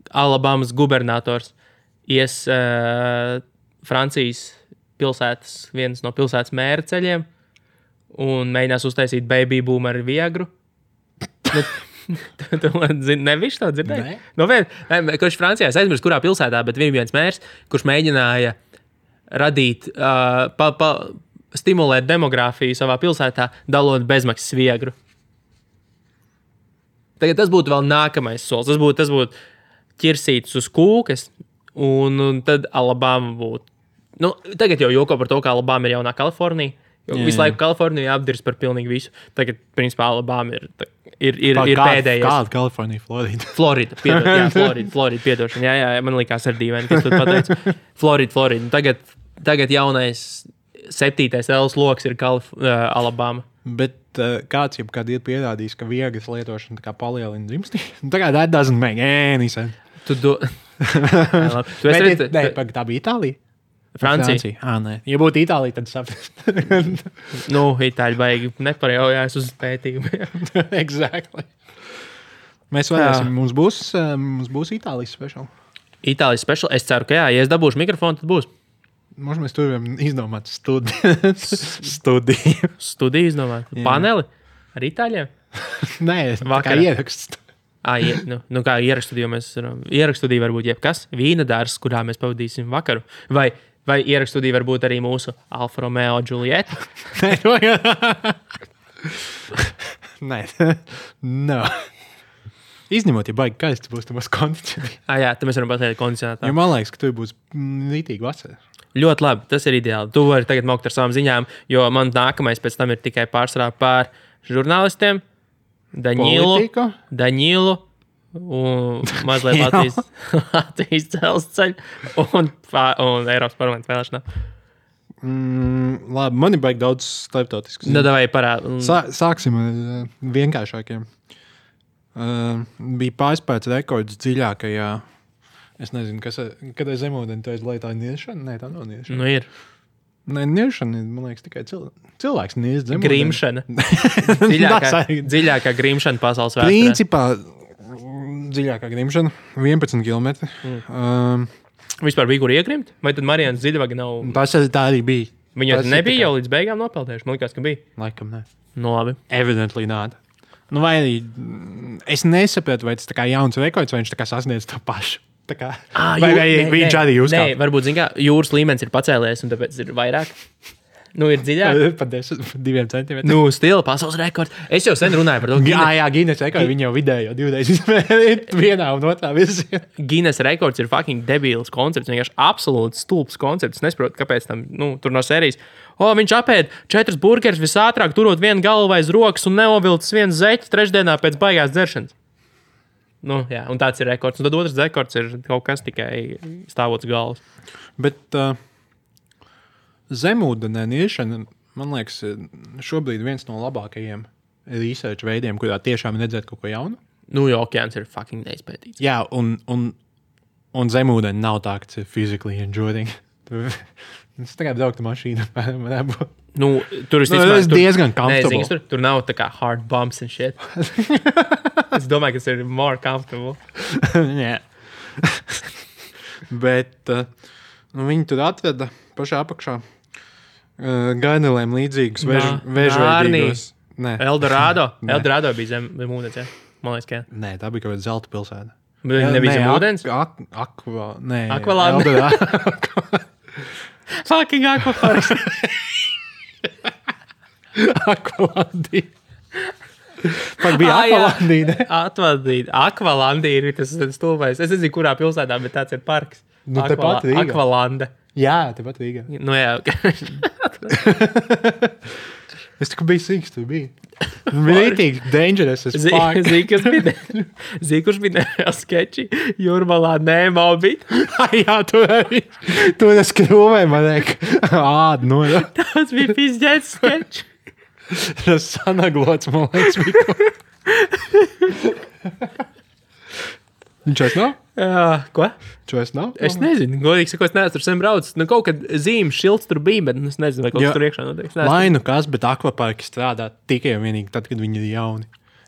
Alabamas gubernators ies Francijas pilsētas, viens no pilsētas mēra ceļiem un mēģinās uztaisīt baby boom ar Viagru. Nevišķi to dzirdēji? Kurš Francijā, es aizmirsu, kurā pilsētā, bet viens mērs, kurš mēģināja radīt, stimulēt demogrāfiju savā pilsētā, dalot bezmaksas Viagru. Tagad tas būtu vēl nākamais solis. Tas būtu ķirsītis uz kūkas, un tad Alabama būtu. Tagad jau joko par to, ka Alabama ir jaunā Kalifornija. Visu laiku Kalifornija apdirs par pilnīgi visu. Tagad, principā, Alabama ir pēdējais. Kāda Kalifornija? Florida. Florida, piedošana. Jā, man likās ar dīvaini, kas tu pateici. Florida. Tagad jaunais 7. L loks ir Alabama. Bet kāds jebkad ir pierādījis, ka viegas lietošana tā kā palielina dzimstību? Tagad that doesn't make any sense. Tā bija Itālija? Francija. Nē. Ja būtu Itālija, tad saprast. Itāļi baigi neparejaujās uz pētījumu. Exactly. Mēs varēsim, mums būs Itālijas special. Itālijas special? Es ceru, ka jā. Ja es dabūšu mikrofonu, tad būs. Možda mēs tur izdomāt studiju. Studiju izdomāt? Paneli? Ar Itāļiem? Nē, kā ieraksts. Kā ierakstudiju mēs varam. Ierakstudiju varbūt jebkas. Vīna dārs, kurā mēs pavadīsim vakaru. Vai ierakstudiju varbūt arī mūsu Alfa Romeo Giulietta? Nē. No. Izņemot, ja baigi kaists būs, tad būs kondicionēts. Jā, tad mēs varam pateikt kondicionētā. Jo man liekas, ka tur būs rītīgi vasara. Ļoti labi, tas ir ideāli. Tu vari tagad mokt ar savām ziņām, jo man nākamais pēc tam ir tikai pārsvarā pār žurnālistiem. Daņilu un mazliet Latvijas dzelzceļu un Eiropas parlamenta vēlēšanā. Labi, man ir baigi daudz starptautiskas. Davai parād. Sāksim ar vienkāršākiem. Bija pārspēts rekords dziļākajā Es nezinu, kad ir zemūdeni, tu aizlai tā niešana? Nē, tā nav niešana. Nu ir. Nē, niešana, man liekas, tikai cilvēks nies zemūdeni. Grimšana. Dziļākā grimšana pasaules vēsturē. Principā dziļākā grimšana 11 km. Vispār bija kur iegrimt? Vai tad Marijanas Dziļvaga nav? Tā arī bija. Viņa nebija jau līdz beigām nopeldējuši. Man liekas, ka bija. Laikam, nē. No labi. Evidently not. Nu, vai arī es nesapratu, vai tas tā kā jauns rekords, vai viņš tā kā sasniedz to pašu. Tā kā, vai viņš arī uzkāpa? Nē, varbūt, zin kā, jūras līmenis ir pacēlies, un tāpēc ir vairāk. Nu, ir dziļāk. Pa 2 centimetriem. Nu, stila pasaules rekords. Es jau sen runāju par to. Jā, Guinness rekords, viņi jau vidējo 2 reizes izmērīt vienā un otrā virzienā. Guinness rekords ir fucking debīls koncepts, vienkārši absolūts stulbs koncepts. Es nesaprotu, kāpēc tam, tur no sērijas. Viņš apēd 4 burgerus visātrāk, turot vienu galvu aiz rokas un neovilcis vienu zeķi trešdienā pēc baigās dzeršanas. Nu, jā, un tāds ir rekords. Un tad otrs rekords ir kaut kas tikai stāvots galvas. Bet zemūdenē niešana, man liekas, šobrīd viens no labākajiem research veidiem, kurā tiešām redzēt kaut ko jaunu. Nu, jo okeāns ir fucking neizpētīts. Jā, un zemūdeni nav tā, ka tas ir physically enjoying. Es tagad brauktu mašīnu. Nu, tur tas ir diezgan comfortable. Nē, tur nav tā kā hard bumps and shit. Es domāju, ka tas ir more comfortable. Jā. Bet viņi tur atveda pašā apakšā gainelēm līdzīgus vēžveidīgos. Eldorado. Eldorado bija zem ūdens, jā? Man liekas, ka jā. Nē, tā bija kaut kāda zelta pilsēta. Bet viņi nebija zem ūdens? Akvalanda. Fucking akvaparks. Akvalandī. Pat bija Akvalandī, ne? Akvalandī ir tas stulbais. Es nezinu, kurā pilsētā, bet tāds ir parks. Nu, tepat Rīgā. Akvalanda. Jā, tepat Rīgā. Nu jā, Es tikai biju sīks, tu biji. Bija rītīgi dangerous as fuck. Zini, kurš bija nereāli skeči? Jūrmalā Nemo bija. Jā, tu es krūvēju, man liek, ādu noda. Tas bija pizģēts skeči. Tas sanaglots, man liekas, bija. Viņš vairs nav? Jā, ko? Viņš vairs nav? Es nezinu, godīgi sakot, es neesmu tur sen braucis. Nu, kaut kad zīmes šilts tur bija, bet es nezinu, vai kaut kas tur iekšā notiek. Lai nu kas, bet akvaparki strādā tikai un vienīgi tad, kad viņi ir jauni.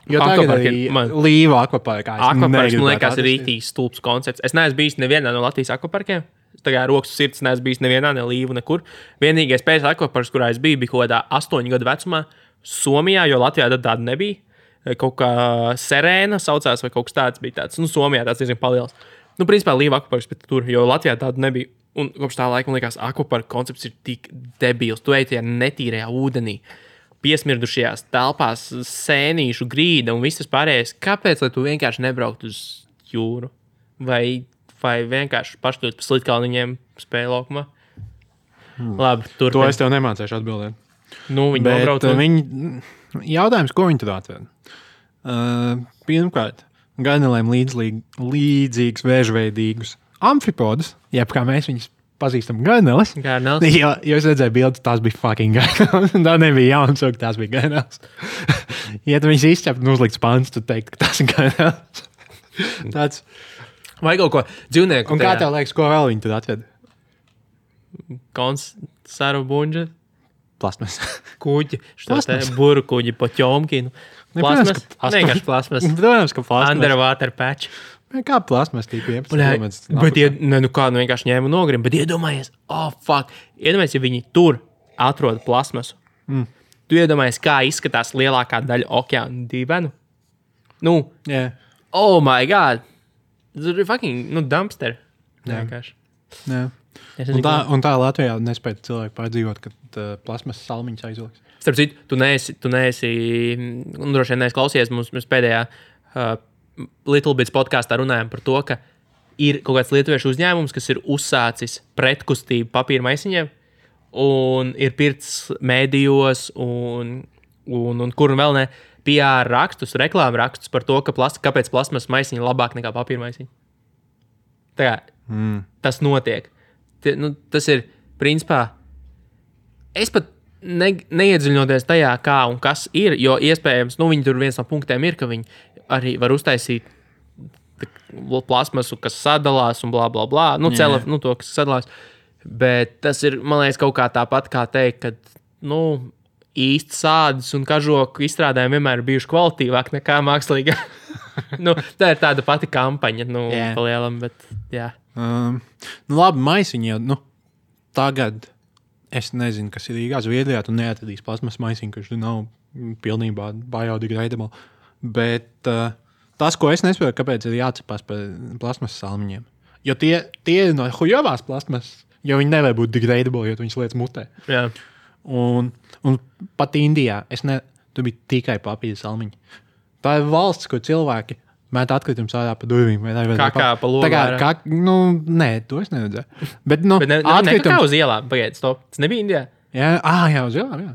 Jo tagad arī Līva akvaparkā. Akvaparks, man liekas, ir rītīgs stulbs koncepts. Es neesmu bijis nevienā no Latvijas akvaparkiem. Tā kā rokas sirds neesmu bijis nevienā, ne Līvu, nekur. Vienīgais pēc akvaparks, kurā es biju, bija kaut kādā 8 gadu vecumā Somijā, jo Latvijā tad tāda nebija. Kaut kā Serēna saucās, vai kaut kas tāds bija tāds. Nu, Somijā tāds diezgan paliels. Nu, principā Līva akvaparks, bet tur, jo Latvijā tāda nebija. Un kopš tā laika, man liekas, akvaparka koncepts ir tik debils. Tu ej tajā netīrajā ūdenī, piesmirdušajās telpās, sēnīšu grīda un viss tas pārējais. Kāpēc, lai tu vienkārši nebrauktu uz jūru? Vai vienkārši pašķirt pa slitkalniņiem spēju laukumā? Labi, turpin. To es tev nemācēšu atbildēt. Nu, viņi nobrauc. Jautājums, ko viņi tur atved? Pirmkārt, gainelēm līdzīgus vēžveidīgus amfipodus, jeb kā mēs viņus pazīstam, gaineles. Jo es redzēju bildes, tās bija fucking gaineles. Tā nebija jauns, ka tās bija gaineles. Ja tu viņus izķept un uzlikts pants, tu teikt, ka tas ir gaineles. Tāds. Vai kaut ko dzīvnieku. Un kā tev liekas, ko vēl viņi tur atved? Saru bunģa. Plasmas. Kuģi. Buru kuģi pa ķomkinu. Plasmas. Vienkārši plasmas. Protams, ka plasmas. Underwater patch. Kā plasmas tīpa 11 km. Bet vienkārši ņēma nogrim. Bet iedomājies, iedomājies, ja viņi tur atrod plasmasu. Tu iedomājies, kā izskatās lielākā daļa okeāna dīvainu? Nu, oh my god. Tas ir fucking, dumpster. Vienkārši. Jā. Un tā Latvijā nespēja cilvēki pārdzīvot, kad plasmas salmiņas aizliks. Starp citu, tu neesi droši vien neesi klausies, mēs pēdējā Little Bits podkāstā runājam par to, ka ir kaut kāds lietuviešu uzņēmums, kas ir uzsācis pretkustību papīra maisiņiem un ir pirts mēdījos un kur vēl ne PR rakstus, reklāmu rakstus par to, kāpēc plasmas maisiņi ir labāk nekā papīra maisiņi. Tā kā tas notiek. Tas ir, principā, es pat neiedziļinoties tajā, kā un kas ir, jo iespējams, viņi tur viens no punktiem ir, ka viņi arī var uztaisīt plasmasu, kas sadalās un blā, blā, blā. Nu, to, kas sadalās. Bet tas ir, man liekas, kaut kā tāpat kā teikt, ka, īsti sādas un kažoku izstrādājumi vienmēr ir bijuši kvalitīvāki nekā mākslīga. Tā ir tāda pati kampaņa, palielam, bet jā. Labi, maisiņi jau, tagad es nezinu, kas ir Rīgā, Zviedrijā, tu neatradīs plasmas maisiņu, kurš nav pilnībā biodegradable. Bet tas, ko es nesaprotu, kāpēc ir jācepās par plasmas salmiņiem. Jo tie ir no hujovās plasmas, jo viņi nevar būt degradable, jo viņas lietas mutē. Jā. Un pat Indijā tur bija tikai papīra salmiņi. Tā ir valsts, kur cilvēki met atkritumus ārā pa durvīm. Kā pa logā? Nē, to es neredzēju. Bet kā uz ielām? Pagaid, stop. Tas nebija Indijā? Jā, uz ielām, jā.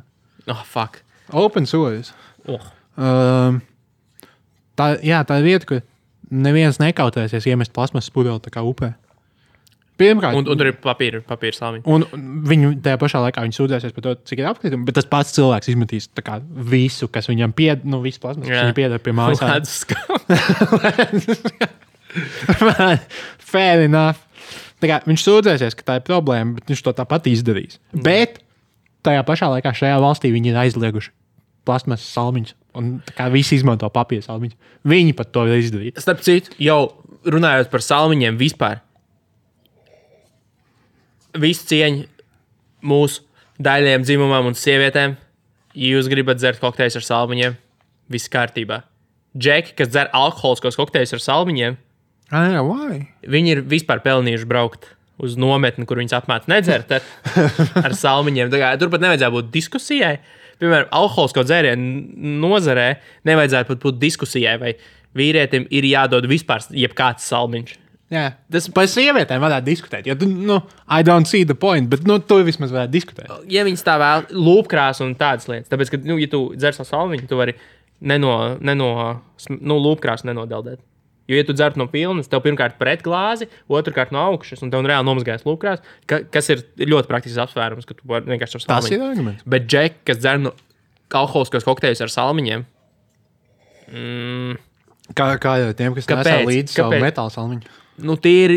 Oh, fuck. Open source. Tā ir vieta, kur neviens nekautēsies iemest plasmasas pudeli tā kā upē. Pirmkārt, un tur ir papīra salmiņi. Un viņi tajā pašā laikā sūdzēsies par to, cik ir apkritumi, bet tas pats cilvēks izmetīs visu, kas viņam visu plasmas, kas viņam pieder pie mājas. Fair enough. Viņš sūdzēsies, ka tā ir problēma, bet viņš to tāpat izdarīs. Bet tajā pašā laikā šajā valstī viņi ir aizlieguši plasmas salmiņus, un visi izmanto papīra salmiņus. Viņi pat to ir izdarījuši. Starp citu, jau runājot par salmiņiem vispār, visu cieņu mūsu daļiem dzimumam un sievietēm. Ja jūs gribat dzert kokteļus ar salmiņiem, viss kārtībā. Džeki, kas dzer alkoholiskos kokteļus ar salmiņiem, viņi ir vispār pelnījuši braukt uz nometni, kur viņus apmāca nedzert ar salmiņiem. Turpat nevajadzētu būt diskusijai. Piemēram, alkoholisko dzērienu nozarē nevajadzētu pat būt diskusijai, vai vīrietim ir jādod vispār jebkāds salmiņš. Jā, tas par sievietēm varētu diskutēt. Jo, I don't see the point, bet to vismaz varētu diskutēt. Ja viņas tā vēl lūpkrās un tādas lietas, tāpēc, ka, ja tu dzer savu salmiņu, tu vari lūpkrās nenodeldēt. Jo, ja tu dzer no pilnas, tev pirmkārt pret glāzi, otrkārt no augšas, un tev reāli nomazgājas lūpkrās, kas ir ļoti praktisks apsvērums, ka tu vari vienkārši ar salmiņu. Tas ir arguments. Bet džeki, kas dzer no alkoholiskos kokteļus ar salmiņiem, Kā jau tiem, kas nesā līdzi savu metālu salmiņu. Tie ir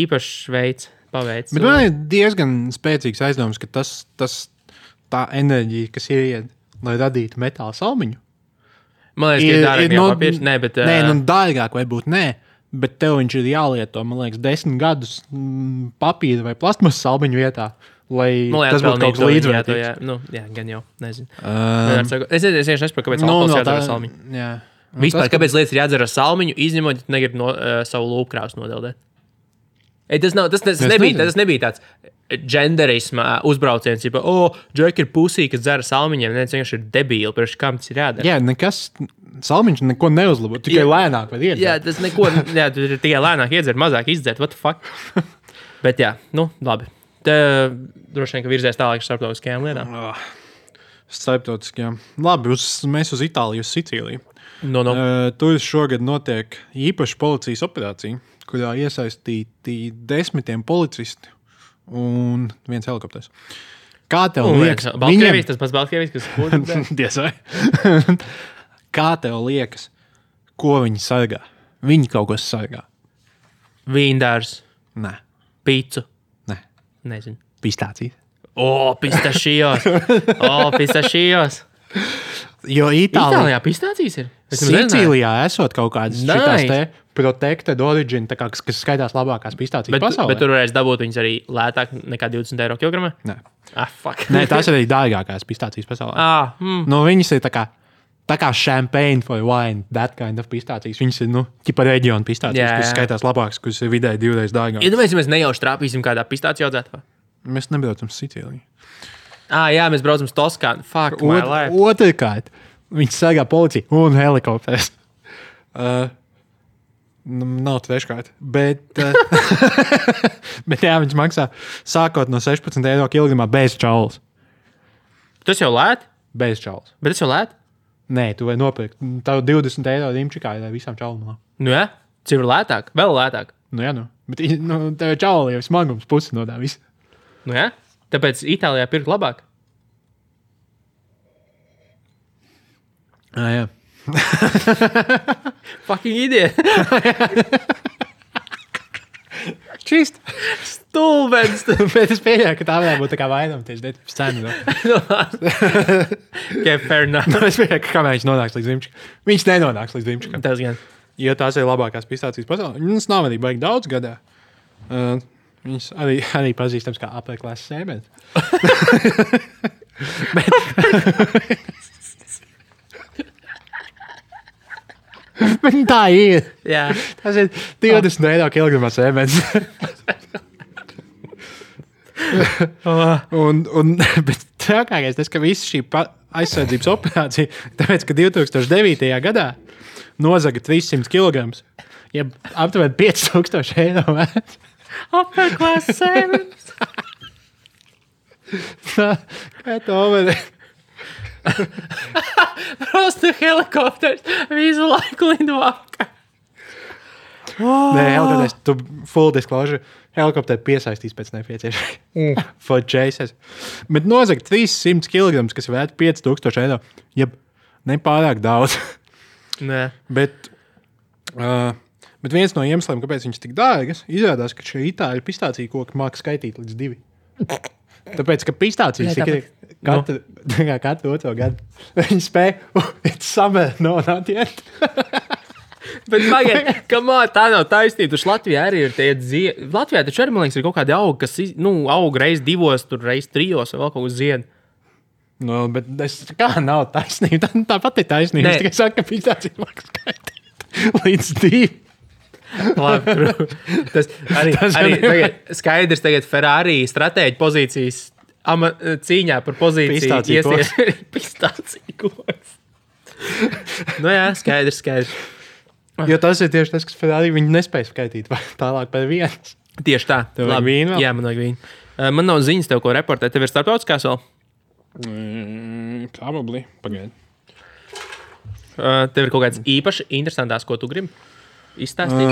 īpašs veids, paveids. Bet man ir diezgan spēcīgs aizdoms, ka tā enerģija, kas ir, lai radītu metāla salmiņu. Man liekas, ka ir dārgāk nekā papīrs. Dārgāk varbūt nē, bet tev viņš ir jālieto, man liekas, 10 gadus papīra vai plasmas salmiņu vietā, lai tas būtu kaut kas līdzvērtīgs. Jā, gan jau, nezinu. Es vienkārši nesaprotu, kāpēc alkohols jādara salmiņu. Jā. Vispār, kāpēc lietas ir jādzer ar salmiņu, izņemot, ja tu negribi savu lūpkrāsu nodeldēt? Tas nebija tāds genderisma uzbrauciens, ja džeki ir pusī, kas dzer ar salmiņiem, neviens vienkārši ir debīli, pirms kam tas ir jādara. Jā, salmiņš neko neuzlabo, tikai lēnāk var iedzert. Jā, tas tu ir tikai lēnāk iedzert, mazāk izdzert, what the fuck? Bet jā, labi. Te droši vien, ka virzies tālāk ar starptautiskajām lietām. Starptautiskajām. Labi, mēs uz Itāliju, uz Sicīliju. Tur šogad notiek īpaša policijas operācija, kurā iesaistīti 10 policisti un 1 helikopters. Kā tev liekas? Tas pats Baltkrievijas, kas kūdam. Tiesai. Kā tev liekas, ko viņi sargā? Viņi kaut ko sargā. Vīndārs. Nē. Pīcu. Nē. Nezinu. Pistācijas. Pistašijos. Jo Itālijā pistācijas ir? Sicīlijā esot kaut kādas šitās te protected origin, kas skaitās labākās pistācijas pasaulē. Bet tur varēs dabūt viņas arī lētāk nekā 20 eiro kilogramā? Nē. Fuck. Nē, tās ir arī dārgākās pistācijas pasaulē. Viņas ir tā kā champagne for wine, that kind of pistācijas. Viņas ir, ķipa reģiona pistācijas, kas skaitās labākas, kas ir vidēji 2 reizes dārgākas. Iedomājies, ja mēs nejauši trāpīsim kādā pistāciju audzētavā? Mēs nebraucam Sicīliju. Jā, mēs braucam uz Toskānu. Fuck my life. Otrkārt, viņi sargā policiju un helikopters. Nav treškārt. Bet jā, viņš maksā sākot no 16 eiro kilogramā bez čaulas. Tas jau lēt? Bez čaulas. Bet tas jau lēt? Nē, tu vari nopirkt. Tavu 20 eiro rimčikā ir visām čaulām. Jā, cik ir lētāk? Vēl lētāk? Jā, Bet tev čaula jau smagums pusi no tā visa. Jā? Tāpēc Itālijā pirkt labāk? Jā. Fucking idiot. Čist. Stulbens. Bet es pieļauju, ka tā varētu būt tā kā vainamties detības cena. Okay, fair enough. Es pieļauju, ka kamēr viņš nonāks līdz Dimčikam. Viņš nenonāks līdz Dimčikam. Tas gan. Jo tās ir labākās pistācijas pasaulē. Viņas nav arī baigi daudz gadā. Viņas arī pazīstams kā apēklās sēmens. Bet tā ir. Jā. Tas ir 20 eiro kilogramā sēmens. Bet trakākais tas, ka visa šī aizsardzības operācija, tāpēc, ka 2009. gadā nozaga 300 kilograms, ja aptuveni 5000 eiro vērts. Upper-class sēmens. Kā to var? Prosta helikopters visu laiku lido apkārt. Nē, helikopters, tu full disclosure, helikopteri piesaistīs pēc nepieciešamības. For chases. Bet nozaga 300 kilograms, kas vērt 5000 eiro, jeb nepārāk daudz. Nē. Bet viens no iemesliem, kāpēc viņš tik dārgas, izrādās, ka šie itāļu pistācija koki māca skaitīt līdz 2. Tāpēc, ka pistācijas ir katru otro gadu. Viņi spēja, it's summer, no, not yet. Bet, pagaid, tā nav taisnība. Taču Latvijā arī ir tie ziedi. Latvijā taču arī, man liekas, ir kaut kādi augi, kas aug reiz 2, tur reiz 3 vai vēl kaut uz ziedi. No, bet kā nav taisnība? Tāpat ir taisnība. Es tikai saku, ka pistācija māca skaitīt līdz 2. Labi, tas arī skaidrs tagad Ferrari stratēģi pozīcijas cīņā par pozīciju pistāciju koks. Nu jā, skaidrs. Jo tas ir tieši tas, kas Ferrari viņi nespēja skaitīt tālāk par 1. Tieši tā. Tev vajag vīnu vēl? Jā, man vajag vīnu. Man nav ziņas tev, ko reportēt. Tev ir starptautiskās vēl? Probably. Pagaid. Tev ir kaut kāds īpaši interesantās, ko tu gribi izstāstīt?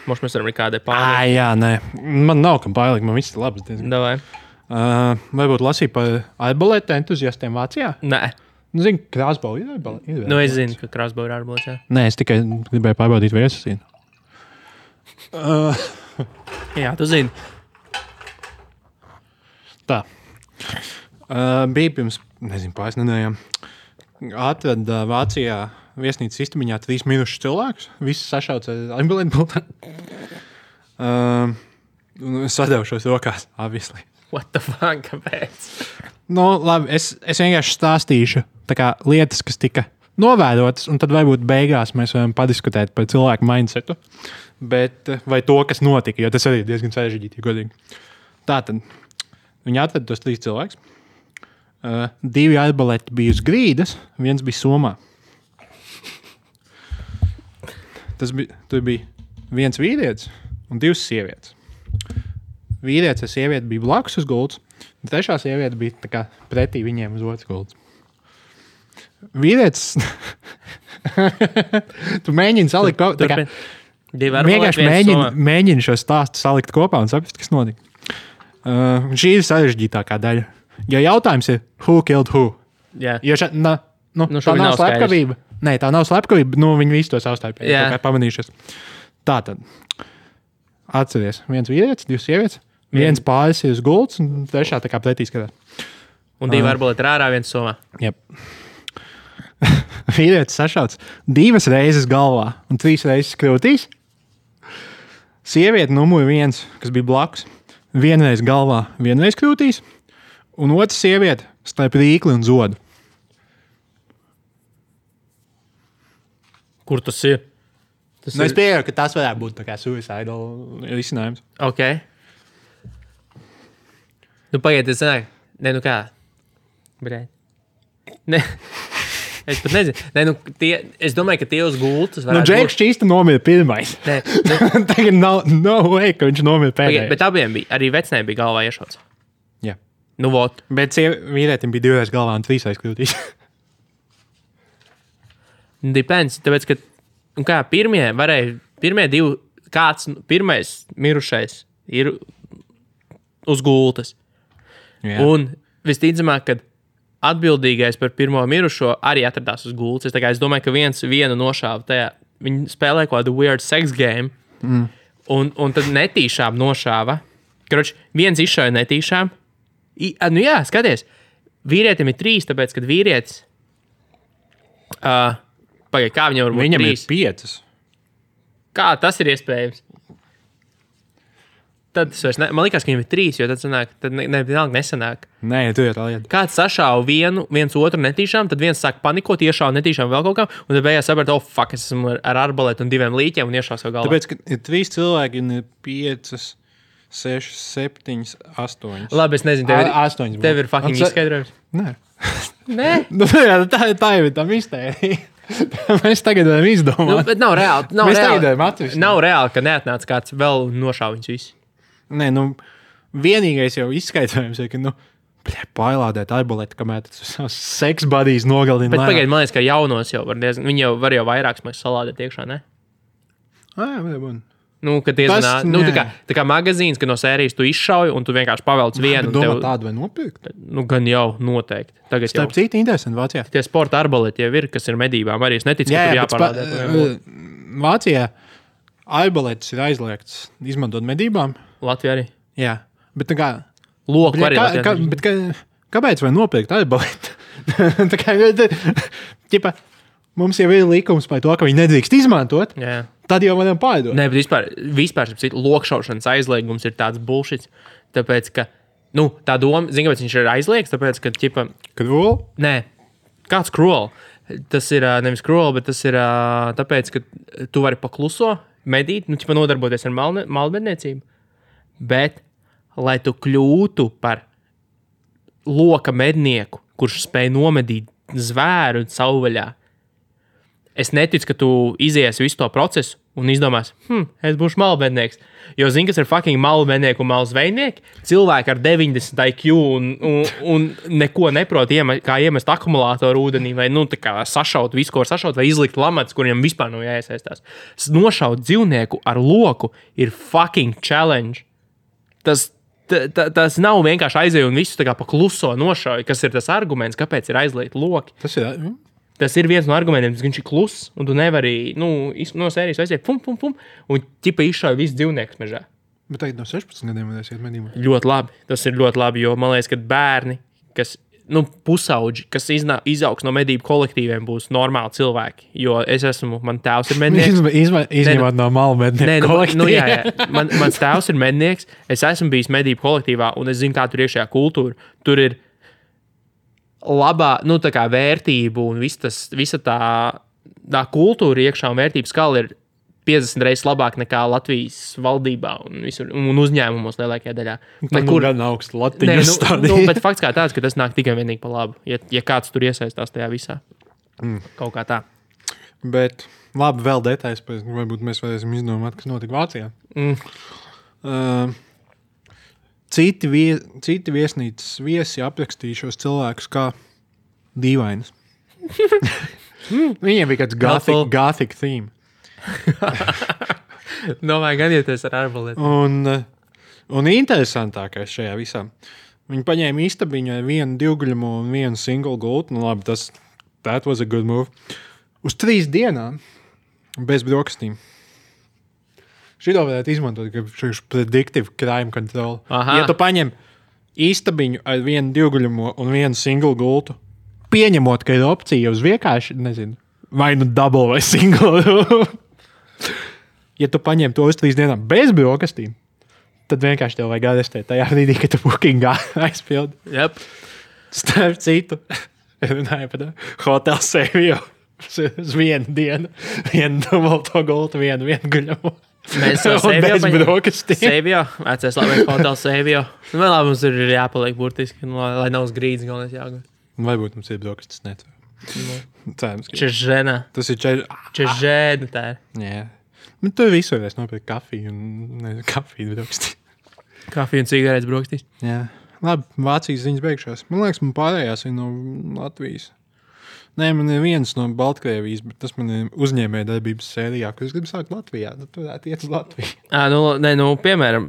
Mums mēs varam arī kādai pārlikt. Jā, nē. Man nav kam pārlikt, man viss ir labs. Davai. Varbūt lasīju par arbalēta entuziastiem Vācijā? Nē. Zinu, krāsbau ir arbalēta. Nu, es zinu, ka krāsbau ir arbalēta. Nē, es tikai gribēju pārbaudīt, vai es esmu. Jā, tu zini. Tā. Bija pirms, pāris nedēļām. Atrada Vācijā viesnīcas istamiņā 3 mirušus cilvēkus. Visi sašauts ar arbalēta bultā. Es sadevšos rokās, obviously. What the fuck, kāpēc? Nu, labi, es vienkārši stāstīšu tā kā lietas, kas tika novērotas, un tad varbūt beigās mēs varam padiskutēt par cilvēku mindsetu. Bet, vai to, kas notika, jo tas arī ir diezgan sarežģīti, godīgi. Tātad, viņi atrada tos 3 cilvēkus. 2 arbalēti bija uz grīdas, 1 bija somā. Tur bija 1 vīrietis un 2 sievietes. Vīrietis ar sievieti bija blakus uz gultas, un 3. sieviete bija tā kā pretī viņiem uz otras gultas. Vīrietis... Tu mēģini salikt tā kā... Vienkārši mēģini šo stāstu salikt kopā un saprast, kas notika. Šī ir sarežģītākā daļa. Jo jautājums ir, who killed who? Jā. Jo tā nav slepkavība. Nē, tā nav slepkavība. Viņi visi to savstarpēji pamanījušies. Tātad, atceries, 1 vīrietis, 2 sievietes, 1 pāris ir uz gultas, un 3. tā kā pretī skatās. Un 2 arbalēti ir ārā, 1 somā. Jep. Vīrietis sašauts 2 reizes galvā un 3 reizes krūtīs. Sieviete numur 1, kas bija blakus, 1 reiz galvā, 1 reiz krūtīs, un otra sieviete starp rīkli un zodu. Kur tas ir? Es pieļauju, ka tas varētu būt tā kā suicidal risinājums. Ok. Nu, pagaid, es zināju. Nē, nu kā? Brēt. Nē. Es pat nezinu. Es domāju, ka tie uz gultas varētu būt. Džeks šķīsta nomira pirmais. Nē. Tagad no way, ka viņš nomira pēdējais. Bet abiem bija, arī vecnēm bija galvā iešauts. Jā. Nu, vot. Bet vīrietim bija 2 reizes galvā un 3 reizes krūtīs. Depends, tāpēc, ka pirmie 2, kāds pirmais mirušais ir uz gultas. Jā. Un visticamāk, kad atbildīgais par pirmo mirušo arī atradās uz gultas. Es domāju, ka vienu nošāva tajā viņi spēlē kaut kādu weird sex game, un tad netīšām nošāva. Kroč, viens izšauja netīšām. Nu jā, skaties, vīrietim ir 3, tāpēc, kad vīrietis... Pagaid, kā viņam var būt 3? Viņam ir 5. Kā tas ir iespējams? Tad man liekas, ka viņam ir 3, jo tad sanāk, tad vienalga nesanāk. Nē, tu ir tā lieta. Kāds sašāva viens otru netīšām, tad viens sāk panikot, iešāva netīšām vēl kaut kā, un tad beigās saprat, fuck, es esmu ar arbalētu un 2 līķiem un iešāva savu galvā. Tāpēc, ka ir 3 cilvēki un ir 5, 6, 7, 8. Labi, es nezinu, tev ir fucking izskaidrojums. Nē. Nē? Nu, jā, tā jau ir tā mistērija. Mēs tagad varam izdomāt. Nu, bet nav reāli. Nav reāli, ka neatnāca kāds vēl un nošāva viņus visus. Nē, nu, vienīgais jau izskaidrojums ir, ka, pailādēt arbaleti, kamēr tas seks buddies nogalina. Bet pagaid, man liekas, ka jaunos jau var diezgan, viņi jau var vairākas mēs salādēt iekšā, ne? Jā. Nu, kad diezgan, tā kā magazīns, ka no sērijas tu izšauj un tu vienkārši pavelc vienu. Domā tādu vai nopirkt? Nu, gan jau, noteikti. Tagad starp citu interesanti Vācijā. Tie sporta arbaleti jau ir, kas ir medībām. Arī es neticu, ka tur jāparādē. Vācijā arbaletis ir aizliegts izmantot medībām. Latvijā arī? Jā, bet tā kā... Loku arī Latvijā. Kāpēc vai nopirkt arbaletu? Tā kā, ķipa, mums jau ir likums par to, ka viņi nedrīkst izmantot. Jā. Tad jau varam pārdot. Nē, bet vispār lokšaušanas aizliegums ir tāds bullshits. Tāpēc, ka, tā doma, zini, kāpēc viņš ir aizliegts, tāpēc, ka, ķipa... Cruel? Nē, kāds cruel? Tas ir nevis cruel, bet tas ir tāpēc, ka tu vari pakluso medīt, ķipa nodarboties ar malmedniecību. Bet, lai tu kļūtu par loka mednieku, kurš spēj nomedīt zvēru savvaļā, es neticu, ka tu iziesi visu to procesu un izdomās, es būšu malmednieks. Jo zini, kas ir fucking malmednieki un malzveinieki? Cilvēki ar 90 IQ un neko neprot, kā iemest akumulātoru ūdenī, vai tā kā sašaut visu, ko var sašaut, vai izlikt lamats, kuriem vispār nav jāiesaistās. Nošaut dzīvnieku ar loku ir fucking challenge. Tas nav vienkārši aizēju un visu tā kā pa kluso nošauju, kas ir tas arguments, kāpēc ir aizliegt loki. Tas ir viens no argumentiem, viņš ir kluss, un tu nevari, no sērijas aiziet, un ķipa izšauja visu dzīvniekus mežā. Bet tagad no 16 gadiem varēs iet medībās. Ļoti labi, tas ir ļoti labi, jo man liekas, ka bērni, kas, pusauģi, kas izaugs no medību kolektīviem, būs normāli cilvēki, jo man tēvs ir mednieks. Izņemot no malu mednieku kolektīvu. Jā. Mans tēvs ir mednieks, es esmu bijis medību kolektīvā, un es zinu, kā tur iekšējā kultūra. Tur ir labā, tā kā vērtību un visa tā kultūra iekšā un vērtības skala ir 50 reizes labāk nekā Latvijas valdībā un uzņēmumos lielākajā daļā. Kur gan augstu Latvijas stādī. Bet fakts kā tāds, ka tas nāk tikai vienīgi pa labu, ja kāds tur iesaistās tajā visā. Kaut kā tā. Bet labi, vēl detaļas, varbūt mēs varēsim izdomāt, kas notika Vācijā. Citi viesnīcas viesi aprakstīja šos cilvēkus kā dīvainus. Viņiem bija kāds gothic theme. Domāju, gan ieties ar arbaleti. Un interesantākais šajā visā. Viņi paņēma istabiņu ar vienu divguļumu un vienu single gultu. Labi, that was a good move. Uz 3 dienām bez brokastīm. Šito varētu izmantot, ka šis predictive crime control. Aha. Ja tu paņem istabiņu ar vienu divguļumu un vienu single gultu, pieņemot, ka ir opcija uz vienkārši, nezinu, vai double vai single. Ja tu paņem to uz 3 dienām bez brokastīm, tad vienkārši tev vajag arestēt tajā brīdī, ka tu bookingā aizpildi. Yep. Starp citu, runāju par Hotel Savio uz 1 dienu, 1 dubulto gultu, 1 guļamu. Mēs jau Savio, vecais labais Hotel Savio. Vēl labi mums ir jāpaliek burtiski, lai nav uz grīdas galvenais jāgūt. Varbūt mums ir brokastis, netver. Cerams, ka Čežena. Tas ir Čežena tā ir. Jā. Bet tu visu varēs nopirkt kafiju un kafiju brokastī. Kafiju un cigaretes brokastīs. Jā. Labi, Vācijas ziņas beigšās. Man liekas, man pārējās ir no Latvijas. Nē, man ir viens no Baltkrievijas, bet tas man ir uzņēmēja darbības sērijā, kur es gribu sākt Latvijā. Tad tu varētu iet uz Latviju. Piemēram,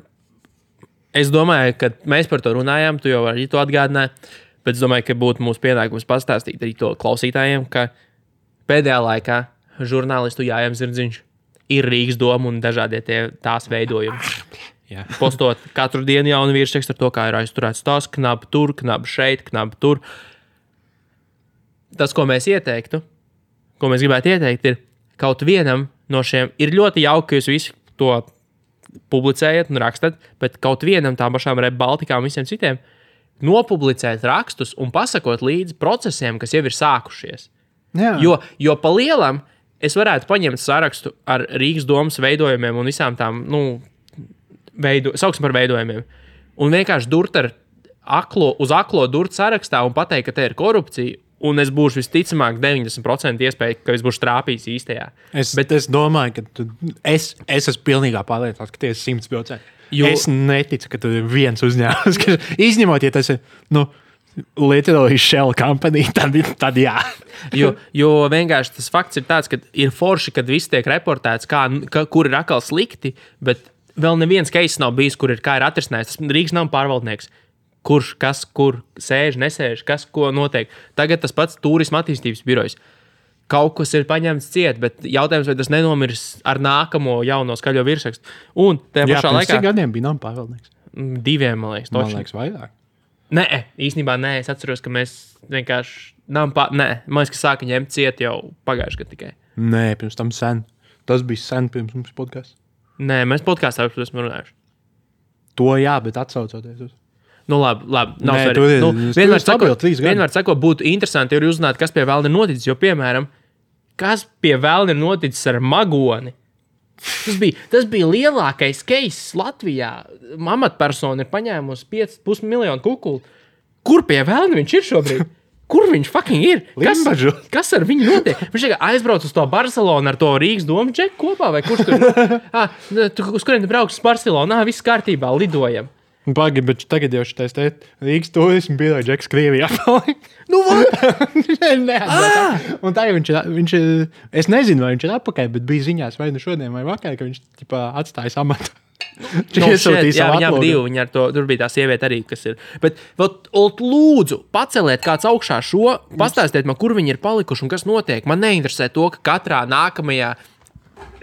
es domāju, ka mēs par to runājām, tu jau arī to atgādināji. Bet es domāju, ka būtu mūsu pienākums pastāstīt arī to klausītājiem, ka pēdējā laikā žurnālistu Jājam Zirdziņš. Ir Rīgas doma un dažādie tās veidojumi. Jā. Postot katru dienu jaunu virsrakstu ar to, kā ir aizturēts tās, knapi tur, knapi šeit, knapi tur. Tas, ko mēs ieteiktu, ko mēs gribētu ieteikt, ir kaut vienam no šiem, ir ļoti jauki, ka jūs visi to publicējat un rakstat, bet kaut vienam tām pašām Rep Baltikām un visiem citiem nopublicēt rakstus un pasakot līdzi procesiem, kas jau ir sākušies. Jā. Jo pa lielam es varētu paņemt sarakstu ar Rīgas domas veidojumiem un visām tām, sauksim par veidojumiem, un vienkārši durt ar uz aklo durt sarakstā un pateikt, ka te ir korupcija, un es būšu visticamāk 90% iespēja, ka es būšu trāpījis īstajā. Es domāju, ka es esmu pilnīgā pārliecināts, ka tie ir 100%. Es neticu, ka tur ir viens uzņēmums, kas izņemot, ja tas ir, literally shell company, tad jā. jo vienkārši tas fakts ir tāds, ka ir forši, kad viss tiek reportēts, kur ir atkal slikti, bet vēl neviens case nav bijis, kā ir atrisinājis. Tas Rīgas nav pārvaldnieks. Kurš, kas, kur sēž, nesēž, kas, ko notiek. Tagad tas pats turisma attīstības birojs. Kaut kas ir paņemts ciet, bet jautājums, vai tas nenomirs ar nākamo jauno skaļo virsrakstu. Un tajā pašā laikā... Cik gadiem bija nav pārvaldnieks? 2, man liekas. Man liekas, vairāk. Nē, īstenībā nē. Es atceros, ka mēs vienkārši... Nē, man liekas, ka sāka ņemt ciet jau pagājuši gadu tikai. Nē, pirms tam sen. Tas bija sen pirms mums podcasts. Nē, mēs podkāstā esam runājuši. To jā, bet atsaucoties uz... Labi, nav svarīgi. Vienmēr sakot, būtu interesanti, ja uzzināt, kas pie vēlna ir noticis. Jo, piemēram, kas pie vēlna ir noticis ar Magoni? Tas bija lielākais case Latvijā. Amatpersona ir paņēmusi 5,5 miljonu kukulu. Kur pie vēlna viņš ir šobrīd? Kur viņš fucking ir? Kas ar viņu notiek? Viņš aizbrauc uz to Barcelonu ar to Rīgas domu džeku kopā, vai kurš tur? Uz kuriem tu brauks uz Barcelonu? Viss kārtībā, lidojam. Pagi, bet tagad jau šitais Rīgas turismu biroja džeks Krievijā palika. Un tā jau viņš ir, es nezinu, vai viņš ir atpakaļ, bet bija ziņās vai šodien vai vakar, ka viņš atstājas amatu. Viņam divi, tur bija tā sieviete arī, kas ir. Bet lūdzu, paceliet kāds augšā šo, pastāstiet man, kur viņi ir palikuši un kas notiek. Man neinteresē to, ka katrā nākamajā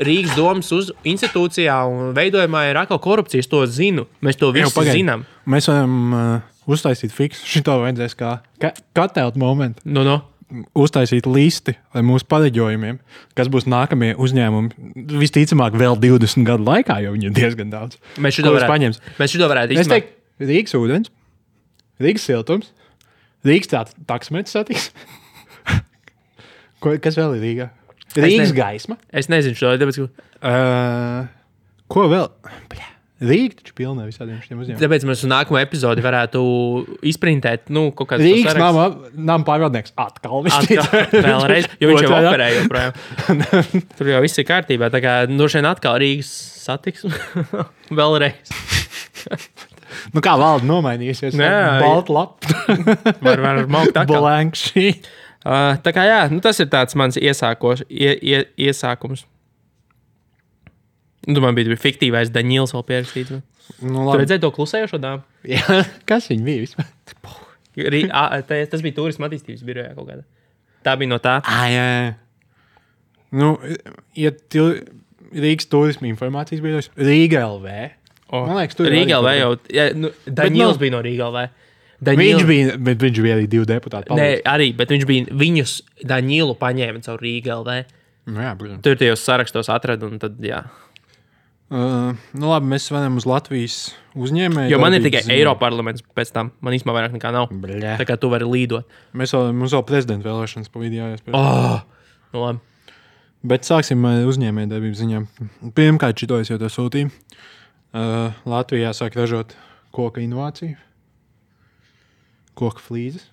Rīgas domas institūcijā un veidojumā ir atkal korupcijas, to zinu. Mēs to visu zinām. Mēs varam uztaisīt fiksu. Šito vajadzēs kā katelt momentu. Uztaisīt listi ar mūsu pareģojumiem, kas būs nākamie uzņēmumi. Visticamāk vēl 20 gadu laikā, jo viņi ir diezgan daudz. Mēs šito varētu Es teiktu, Rīgas ūdens, Rīgas siltums, Rīgas taksmetes satiksme. Kas vēl ir Rīgā? Rīgas gaisma. Es nezinu šo, tāpēc, ko vēl? Rīga taču pilnē visādiem šiem uzņēmumiem. Tāpēc mēs uz nākamo epizodi varētu izprintēt, kaut kāds Rīgas nama pārvaldnieks atkal. Vēlreiz, jo viņš jau operē joprojām. Tur jau viss ir kārtībā, tā kā šeit atkal Rīgas satiksme. Vēlreiz. Kā valda nomainīsies? Balta lapa. Var maukt atkal. Blank sheet. Tā kā jā, tas ir tāds mans iesākums. Man bija fiktīvais Daņils vēl pierakstīts. Tu redzēji to klusējošo dāmu? Jā, kas viņa bija vispār? Tas bija turisma attīstības birojā kaut kādā. Tā bija no tā. Jā. Rīgas turisma informācijas birojas, Rīga LV. Man liekas, tur Rīga LV jau. Daņils bija no Rīga LV. Viņš bija arī 2 deputāti. Nē, arī, bet viņš bija viņus Daņilu paņēma caur Rīga LV. Jā, protams. Tur tajos sarakstos atrada un tad, jā. Labi, mēs varam uz Latvijas uzņēmēju. Jo man ir tikai Eiroparlaments pēc tam. Man īstenībā vairāk nekā nav. Bļā. Tā kā tu vari līdot. Mums vēl prezidenta vēlēšanas pa vidu jāiespēj. Labi. Bet sāksim ar uzņēmēju darbību ziņām. Pirmkārt, šito es jau to sūtīju. Latvijā sāk ražot koka inovāciju. Koka flīzes.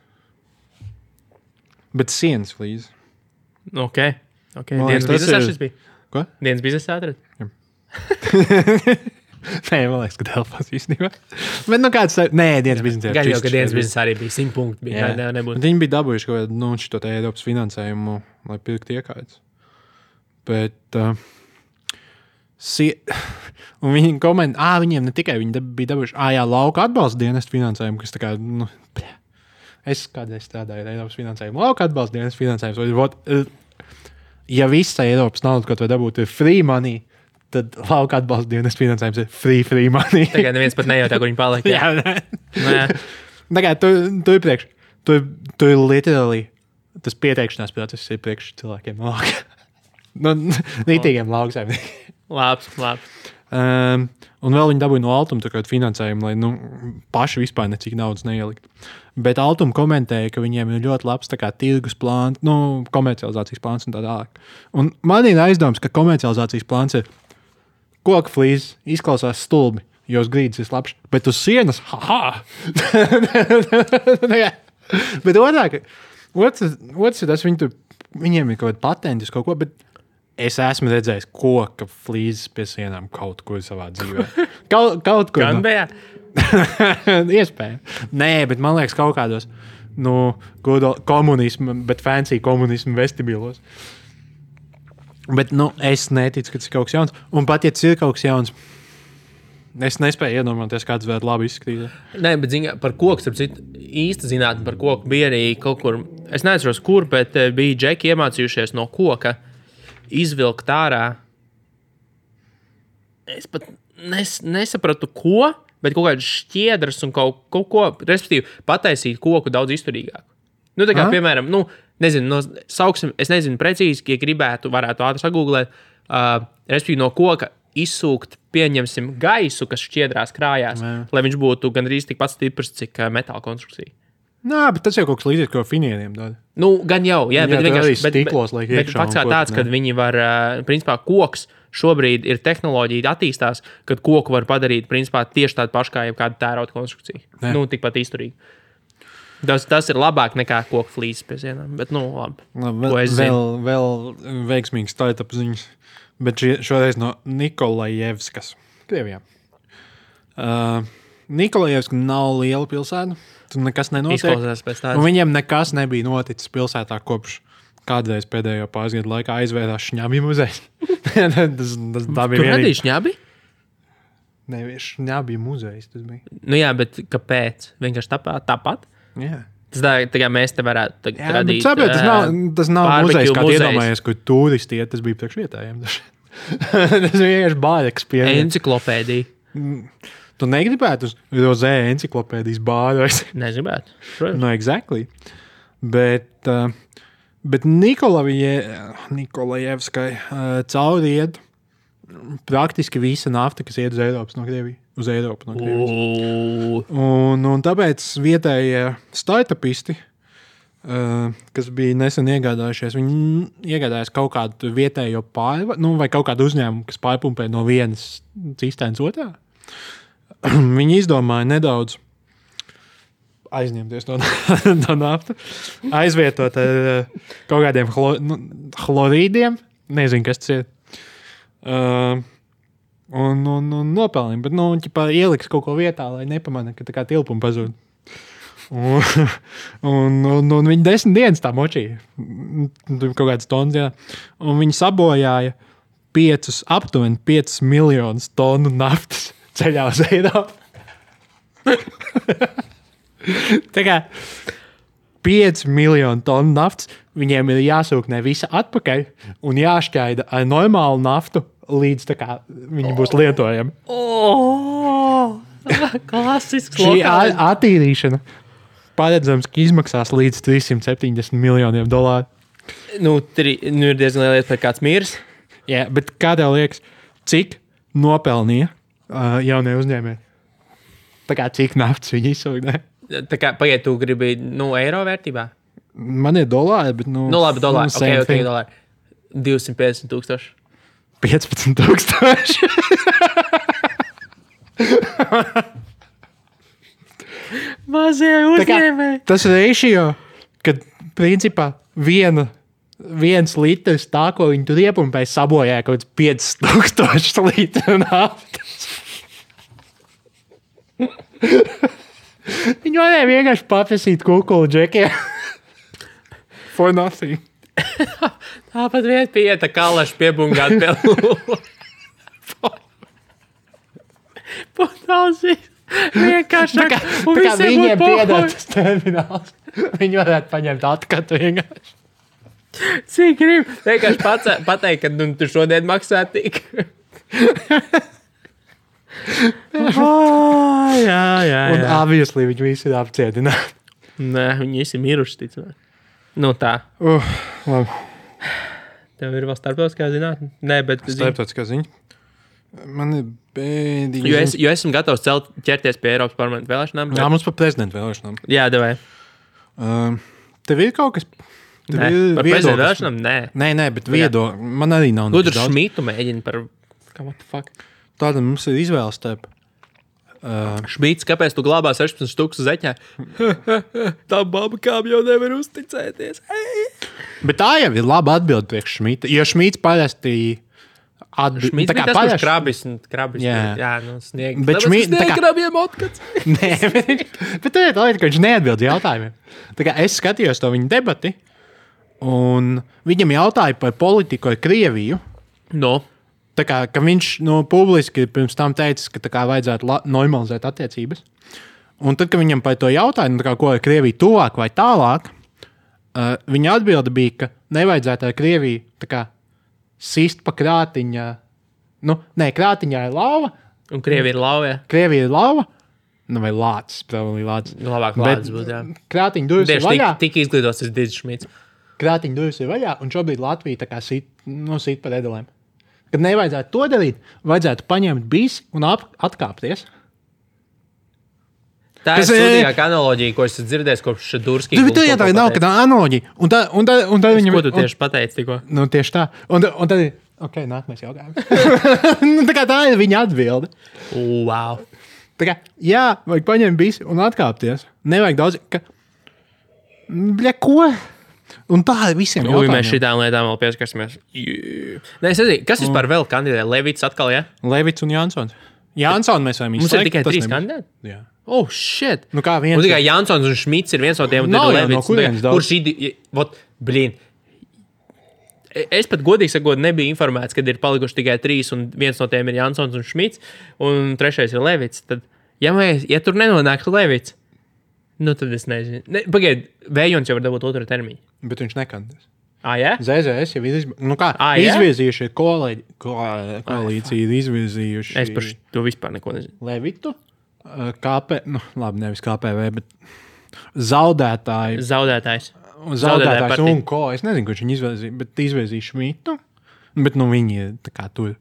Bet sienas flīzes. Ok. Dienas biznesā šis bija? Ko? Dienas biznesā atrad? Jā. Nē, man liekas, ka Delfos īstenībā. Bet kāds... Nē, dienas biznesā. Gan jau, ka dienas biznesā arī bija 100 punkti. Viņi bija dabūjuši kaut kādu šito Eiropas finansējumu, lai pirkt iekārtas. Bet... Un viņi komentē, viņiem ne tikai viņi bija dabūjuši, lauka atbalsta dienestu finansējumu, kas tā kā, es kādreiz strādāju ar Eiropas finansējumu, lauka atbalsta dienestu finansējumu, ja visa Eiropas nauda, ko tu dabūtu, ir free money, tad lauka atbalsta dienas finansējums ir free money. Tagad neviens pat nejautā, kur viņi paliek. Jā, Nē. Tagad tu ir priekš. Tu ir literally, tas pieteikšanās process ir priekš cilvēkiem no lauka. No nītīgiem lauksaimniekiem. Labi. Un vēl viņi dabūja no Altuma finansējumu, lai paši vispār necik naudas neielikt. Bet Altuma komentēja, ka viņiem ir ļoti labs tirgus plāns, komercializācijas plāns un tā tālāk. Un man ir aizdoms, ka komercializācijas plāns ir koka flīzes, izklausās stulbi, jo uz grīdas ir slapš, bet uz sienas, Bet otrs ir tas, viņiem ir kaut kāda patentis kaut ko, bet es esmu redzējis koka flīzes pie sienām kaut kur savā dzīvē. Kaut kur. Gan bija? Iespēja. Nē, bet man liekas kaut kādos komunismu, bet fancy komunismu vestibilos. Bet es neticu, ka tas ir kaut kas jauns. Un pat, ja tas ir kaut kas jauns, es nespēju iedomāties, kāds varētu labi izskatīt. Nē, bet par koku, īsta zinātne par koku bija arī kaut kur, es neatceros kur, bet bija džeki iemācījušies no koka izvilkt ārā. Es pat nesapratu, ko, bet kaut kādas šķiedras un kaut ko, respektīvi, pataisīt koku daudz izturīgāku. Tā kā, piemēram, nezinu, sauksim, es nezinu precīzi, ja gribētu, varētu ātri sagūglēt, respektīvi no koka izsūkt, pieņemsim, gaisu, kas šķiedrās krājās, lai viņš būtu gandrīz tikpat stiprs, cik metāla konstrukcija. Nā, bet tas jau kaut kas līdzīgs, ko finieriem dod. Gan jau, jā, bet vienkārši stiklos, bet fakts kā tāds, kad viņi var, principā, koks šobrīd ir tehnoloģija attīstās, kad koku var padarīt, principā, tieši tādu pašu kā jebkāda tērauda konstrukcija. Tikpat izturīgi. Tas ir labāk nekā koku flīzes pie sienām, bet, labi. Vēl veiksmīgs startup ziņas, bet šoreiz no Nikolajevskas, Krievijā. Nikolajevska nav liela pilsēta, tur nekas nenotiek. Izklausās pēc tādas. Un viņiem nekas nebija noticis pilsētā kopš kādreiz pēdējo pāris gadu laikā aizvērās Šņabi muzejs. Tā bija Tur nebija Šņabi? Nevis Šņabi muzejs tas bija. Jā, bet kāpēc? Vienkārši tāpat? Jā. Tas tā kā mēs te varētu radīt. Tas nav muzejs, kā iedomājies, kur turisti iet, tas bija priekš vietējiem. Tas bija vienkārši bāreks pie. Enciklopēdija. Tu negribētu uz rozē enciklopēdijas bāru? Negribētu. Exactly. Bet Nikolajevskai cauri iet praktiski visa nafta, kas iet uz Eiropas no Krievijas. Uz Eiropu no Krievijas. Un tāpēc vietējie startupisti, kas bija nesen iegādājušies, viņi iegādājās kaut kādu vietējo vai kaut kādu uzņēmumu, kas pārpumpē no vienas cistēnas otrā. Viņi izdomāja nedaudz aizņemties to naftu, aizvietot ar kaut kādiem chlorīdiem, nezinu, kas tas ir. Un nopelnīja, bet ieliks kaut ko vietā, lai nepamana, ka tā kā tilpuma pazūd. Un viņi 10 dienas tā močīja. Tur kaut kāds tons, jā. Un viņi sabojāja aptuveni 5 miljonus tonu naftas ceļā uz Eiropu. Tā kā 5 miljonu tonu naftas, viņiem ir jāsūknē visa atpakaļ un jāšķaida ar normālu naftu, līdz tā kā viņi būs lietojami. Klasisks šī attīrīšana paredzams, ka izmaksās līdz $370 miljoniem. Ir diezgan liela lieta, par kāds mirs. Jā, bet kā tev liekas, cik nopelnīja jaunie uzņēmēji? Tā kā cik naftas viņi izsūknē? Tā kā, pagaid, tu gribi, eiro vērtībā? Man ir dolāri, bet, labi, dolāri. Okay, dolāri. 250,000. 15,000. Mazie uzņēmēji. Tas ratio, kad principā viens litrs tā, ko viņi tur iepumpēja, sabojāja kaut 5,000 litru naftas. Viņi varēja vienkārši paprasīt kukulu džekiem. For nothing. Tāpat vieta pieta kalaši piebungāt pie lūla. Potausīs. Vienkārši. Tā kā viņiem piedāt tas termināls. Viņi varētu paņemt atkatu vienkārši. Cik grib? Vienkārši pateikt, ka tu šodien maksā tik. Jā. Un obviously viņi visi ir apcietināti. Nē, viņi visi miruši, ticamāk. Nu tā. Labi. Tev ir vēl starptautiskā zinātne? Nē, bet... Starptautiskā ziņa. Man ir bēdīgi. Jo esmu gatavs ķerties pie Eiropas parlamenta vēlēšanām. Bet... Jā, mums par prezidenta vēlēšanām. Jā, devai. Tev ir kaut kas... Nē, par prezidenta vēlēšanām? Nē, bet man arī nav. Gudru Šmitu mēģina par... What the fuck? Tāda mums ir izvēles starp. Šmīts, kāpēc tu glābā 16 štukas zeķē? Tā baba kām jau nevar uzticēties. Bet tā jau ir laba atbilde priekš Šmita. Jo Šmīts parasti Šmīts bija tas, kurš krabis. Jā, sniegt. Bet Šmīts... Sniegt krabiem otkats. Nē, bet tā ir tā lieta, ka viņš neatbild jautājumiem. Tā kā es skatījos to viņa debati, un viņam jautāja par politiku ar Krieviju. No. Tā kā viņš publiski pirms tam teica, ka tā kā vajadzētu normalizēt attiecības. Un tad, kad viņam par to jautāja, kā, ko ar Krieviju tuvāk vai tālāk, viņa atbilde bija, ka nevajadzētu ar Krieviju tā kā sist pa krātiņa. Krātiņā ir lauva. Un Krievija ir lauva, jā. Krievija ir lauva. Vai lācis, probably lācis. Labāk lācis būtu, jā. Krātiņa durvis ir vaļā. Tik izglītos es Didis Šmits. Krātiņa durvis ir vaļā, un šobrīd Latvija tā kā sit pa edelēm. Kad nevajadzētu to darīt, vajadzētu paņemt bisi un atkāpties. Tā ir sūdīgāka analoģija, ko esmu dzirdējis kopš Durskī. Tā nav kāda analoģija. Un tad viņam... Ko tu tieši pateici tikko? Tieši tā. Un tad... Ok, nākamais jautājums. Tā ir viņa atbilde. Wow. Tā kā, jā, vajag paņemt bisi un atkāpties. Nevajag daudz... Bļa, ko? Un tā ir visiem jautājumiem. Mēs šitām lietām vēl pieskarsimies. Nē, es nezinu, kas vispār vēl kandidē? Levits atkal, jā? Levits un Jansons. Jansons mēs varam izslēgt. Mums ir tikai 3 kandidāti? Jā. Oh, shit. Kā viens? Un tikai Jansons un Šmits ir viens no tiem. Nav jau no kurienes daudz. Blīn. Es pat godīgi sakot, nebiju informēts, kad ir palikuši tikai 3 un viens no tiem ir Jansons un Šmits un 3. ir Levits. Tad, ja tur nenonāktu Levits, tad es nezinu. Pagaid, Vējons jau var dabūt 2. termiņu. Bet viņš nekandidēs. Jā? ZZS jau ir izvirzījuši koalīciju, ir izvirzījuši. Es par to vispār neko nezinu. Levitu, nevis KPV, bet zaudētājs un ko. Es nezinu, kurš viņi izvirzīja, bet izvirzīja Šmitu. Bet viņi ir tā kā tur.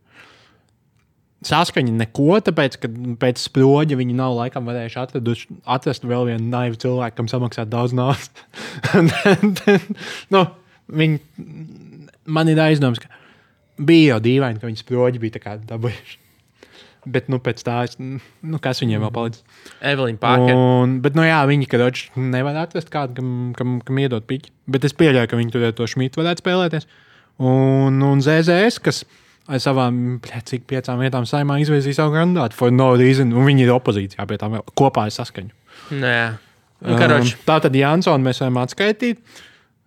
Saskaņa neko, tāpēc, ka pēc sproģa viņi nav laikam varējuši atrast vēl vienu naivu cilvēku, kam samaksāt daudz naudas. Man ir aizdoms, ka bija jau dīvaini, ka viņi sproģi bija tā kā dabūjuši. Bet, pēc tā, kas viņiem vēl palicis? Evelīna Parker. Bet, viņi, karoči, nevar atrast kādu, kam iedot piķi. Bet es pieļauju, ka viņi tur to Šmitu varētu spēlēties. Un ZZS, kas ar savām, 5 vietām saimā izvirzīja savu kandidātu for no reason, un viņi ir opozīcijā pie tām vēl kopā ar Saskaņu. Tā tad Jansonu mēs varam atskaitīt.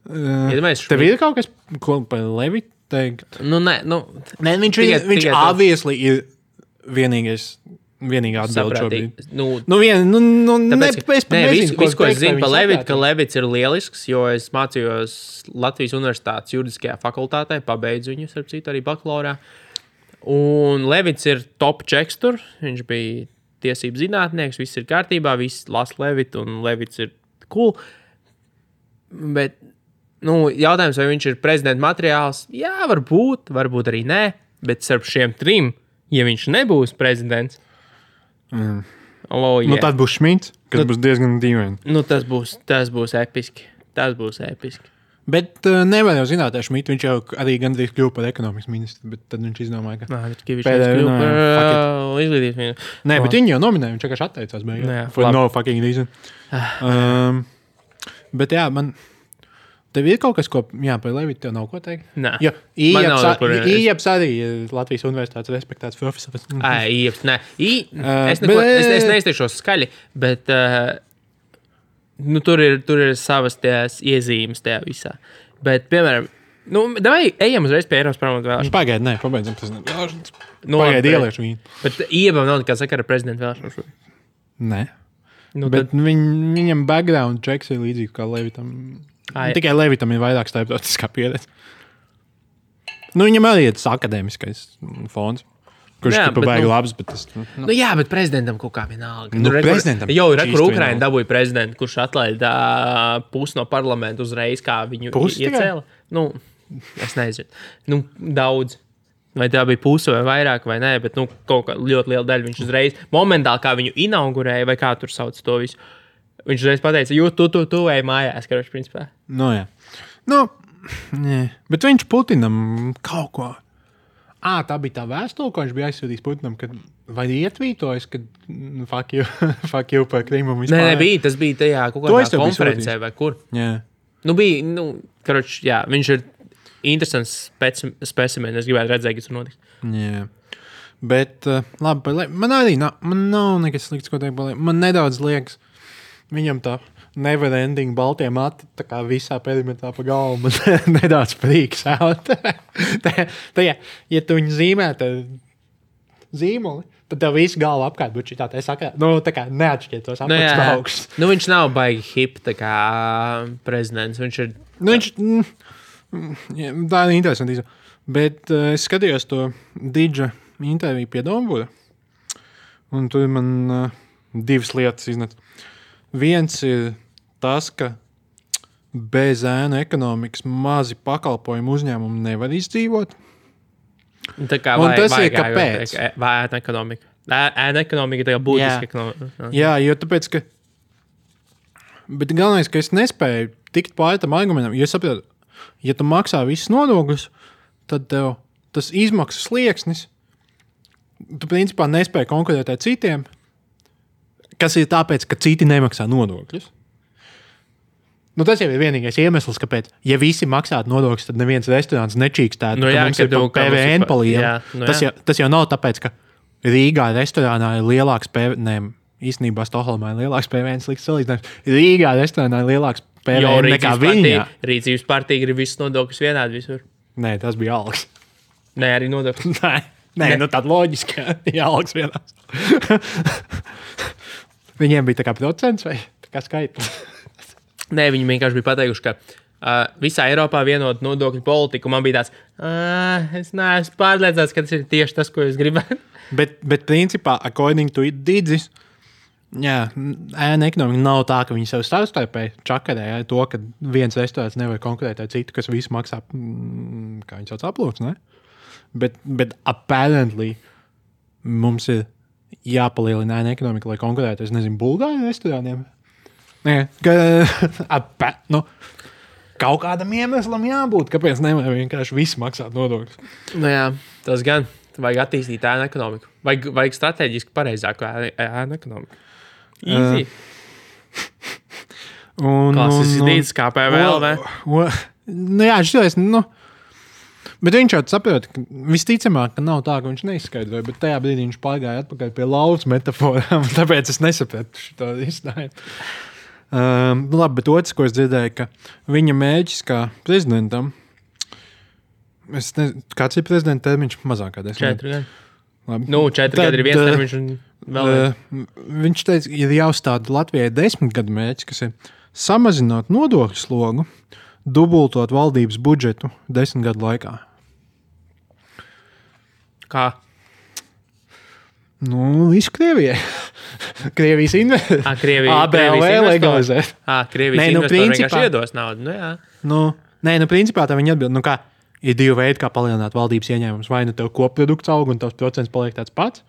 Tev ir kaut kas, ko par Levitu teikt? Viņš obviously ir vienīgā atbilde šobrīd. Viss, ko es zinu par Levitu, ka Levits ir lielisks, jo es mācījos Latvijas Universitātes juridiskajā fakultātē, pabeidzu viņu, starp citu, arī bakalaurā. Un Levits ir top checks tur, viņš bija tiesību zinātnieks, viss ir kārtībā, viss lasa Levitu, un Levits ir cool. Bet, jautājums, vai viņš ir prezidenta materiāls? Jā, varbūt arī nē, bet starp šiem 3, ja viņš nebūs prezidents, tad būs Šmits, kas būs diezgan dīvaini. Tas būs episki. Bet nevar jau zināt, ar Šmitu viņš jau arī gandrīz kļuva par ekonomikas ministru, bet tad viņš izdomāja, ka viņš kļuva par izglītības ministru. Nē, bet viņi jau nominēja, viņš vienkārši atteicās beigās. For no fucking reason. Bet jā, tev ir kaut kas, ko, par Levitu tev nav ko teikt? Nē. Jo Ieps arī ir Latvijas Universitātes respektēts profesors. Ieps, nē. Es neizteikšos skaļi, bet tur ir savas tās iezīmes tajā visā. Bet, piemēram, davai ejam uzreiz pie Eiropas parlamenta vēlēšanas. Pagaid, pabeidzam prezidenta vēlēšanas. Pagaid, ieliešu viņu. Bet Iebam nav nekā sakara prezidenta vēlēšanas. Nē. Bet viņam background checks ir līdzīgi kā Levitam. Tikai Levitam ir vairāk starptautiskā pieredze. Nu, viņam arī ir tas akadēmiskais fons. Kurš ir pabeigts labs, bet tas... Jā, bet prezidentam kaut kā vienalga. Prezidentam jau ir, kur Ukraina dabūja prezidentu, kurš atlaida pusi no parlamentu uzreiz, kā viņu iecēla. Es nezinu. Daudz. Vai tā bija puse vai vairāk vai nē, bet kaut kā ļoti liela daļa viņš uzreiz, momentāli kā viņu inaugurēja, vai kā tur sauc to visu, viņš uzreiz pateica, tu ej mājās, karoči, principā. Jā. Nē. Bet viņš Putinam kaut ko... tā bija tā vēstule, ko viņš bija aizsūtījis Putinam, kad vai ietvītojas, kad fuck you par Krimu vispār. Nē, tas bija tajā kaut kādā konferencē vai kur. Jā. Karoči, jā, viņš ir interesants specimens, es gribētu redzēt, kas tur notiks. Jā. Bet, labi, man arī man nav nekas slikts, ko teikt, man nedaudz liekas, viņam tā never ending baltie mati, tā kā visā perimetrā pa galvu, man nedaudz prīks out. Ja tu viņu zīmētu zīmoli, tad tev visu galvu apkārt būtu šitā, tā kā neatšķiet tos apakšs augšs. Viņš nav baigi hip, tā kā prezidents, viņš ir... tā ir interesanti. Bet es skatījos to Didža interviju pie Dombura, un tur man divas lietas iznet. Viens ir tas, ka bez ēnu ekonomikas mazi pakalpojumu uzņēmumi nevar izdzīvot. Tā kā un tas ir kāpēc? Vai ēnu ekonomika? Ēnu ekonomika ir tā kā būtiska ekonomika. Jā, jo tāpēc, ka... Bet galvenais, ka es nespēju tikt pāri tam argumentam, jo es saprotu, ja tu maksā visus nodokļus, tad tev tas izmaksas slieksnis, tu principā nespēji konkurēt ar citiem, kas ir tāpēc, ka citi nemaksā nodokļus. Tas jau ir vienīgais iemesls, kāpēc, ja visi maksātu nodokļus, tad neviens restorāns nečīkstētu, ka mums ir PVN pa lielu. Tas jau nav tāpēc, ka Rīgā restorānā ir lielāks PVN, īstenībā Stokholmā ir lielāks PVN, slikts salīdzinājums. Rīgā restorānā ir lielāks PVN nekā Viņā. Rīcības partija grib visus nodokļus vienādi visur. Nē, tas bija algas. Nē, arī nodokļus. Nē, tāda loģiska, ja algas vienās. Viņiem bija tā kā procents vai tā kā skaitlis? Nē, viņi vienkārši bija pateikuši, ka visā Eiropā vienot nodokļu politiku. Man bija tāds, es neesmu pārliecināts, ka tas ir tieši tas, ko jūs gribētu. Bet principā, according to Didzis, ēna ekonomika nav tā, ka viņi sev savstarpēji čakarē to, ka viens restorāns nevar konkurēt ar citu, kas visu maksā, kā viņi sauc, aplūks, ne? Bet apparently mums ir jāpalielina ēna ekonomika, lai konkurētu, es nezinu, Bulgāru restorāniem. Kaut kādam iemeslam jābūt, kāpēc nevar vienkārši visi maksāt nodokļus. Jā, tas gan. Vajag attīstīt ēnu ekonomiku. Vajag strateģiski pareizāku ēnu ekonomiku. Easy. Klasisks dīdis kā PVL, ne? Šitais, bet viņš jau saprot, ka visticamāk, ka nav tā, ka viņš neizskaidroja, bet tajā brīdī viņš pārgāja atpakaļ pie laudas metaforām, tāpēc es nesapratu šito izstājumu. Labi, bet otrs, ko es dzirdēju, ka viņa mēģis kā prezidentam, kāds ir prezidenta termiņš? Mazāk kā 10 gadi. 4 gadi ir viens termiņš un vēl viņš teica, ir jāuzstāda Latvijai 10 gadu mērķis, kas ir samazināt nodokļu slogu, dubultot valdības budžetu 10 gadu laikā. Kā? Visu Krievijai. Krievijas investori. ABLV legalizēt. Krievijas investori vienkārši iedos naudu. Principā tā viņi atbild, kā ir divi veidi, kā palielināt valdības ieņēmumus. Vai tev koprodukts aug un tavs procents paliek tāds pats,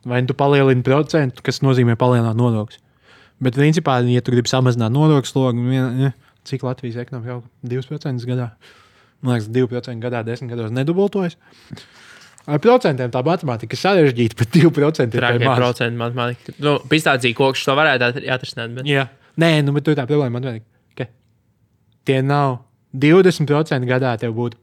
vai tu palielini procentu, kas nozīmē palielināt nodokļus. Bet principā, ja tu gribi samazināt nodokļu slogu, cik Latvijas ekonomika aug 2% gadā? Man liekas, 2% gadā 10 gados nedubultojas. Ar procentiem tā matemātika ir sarežģīta, bet 2% ir maz. Procentu matemātika. Pistācija kokšs to varētu atrisināt. Bet... Jā. Nē, bet tu tā problēma matemātika, ka tie nav 20% gadā tev būtu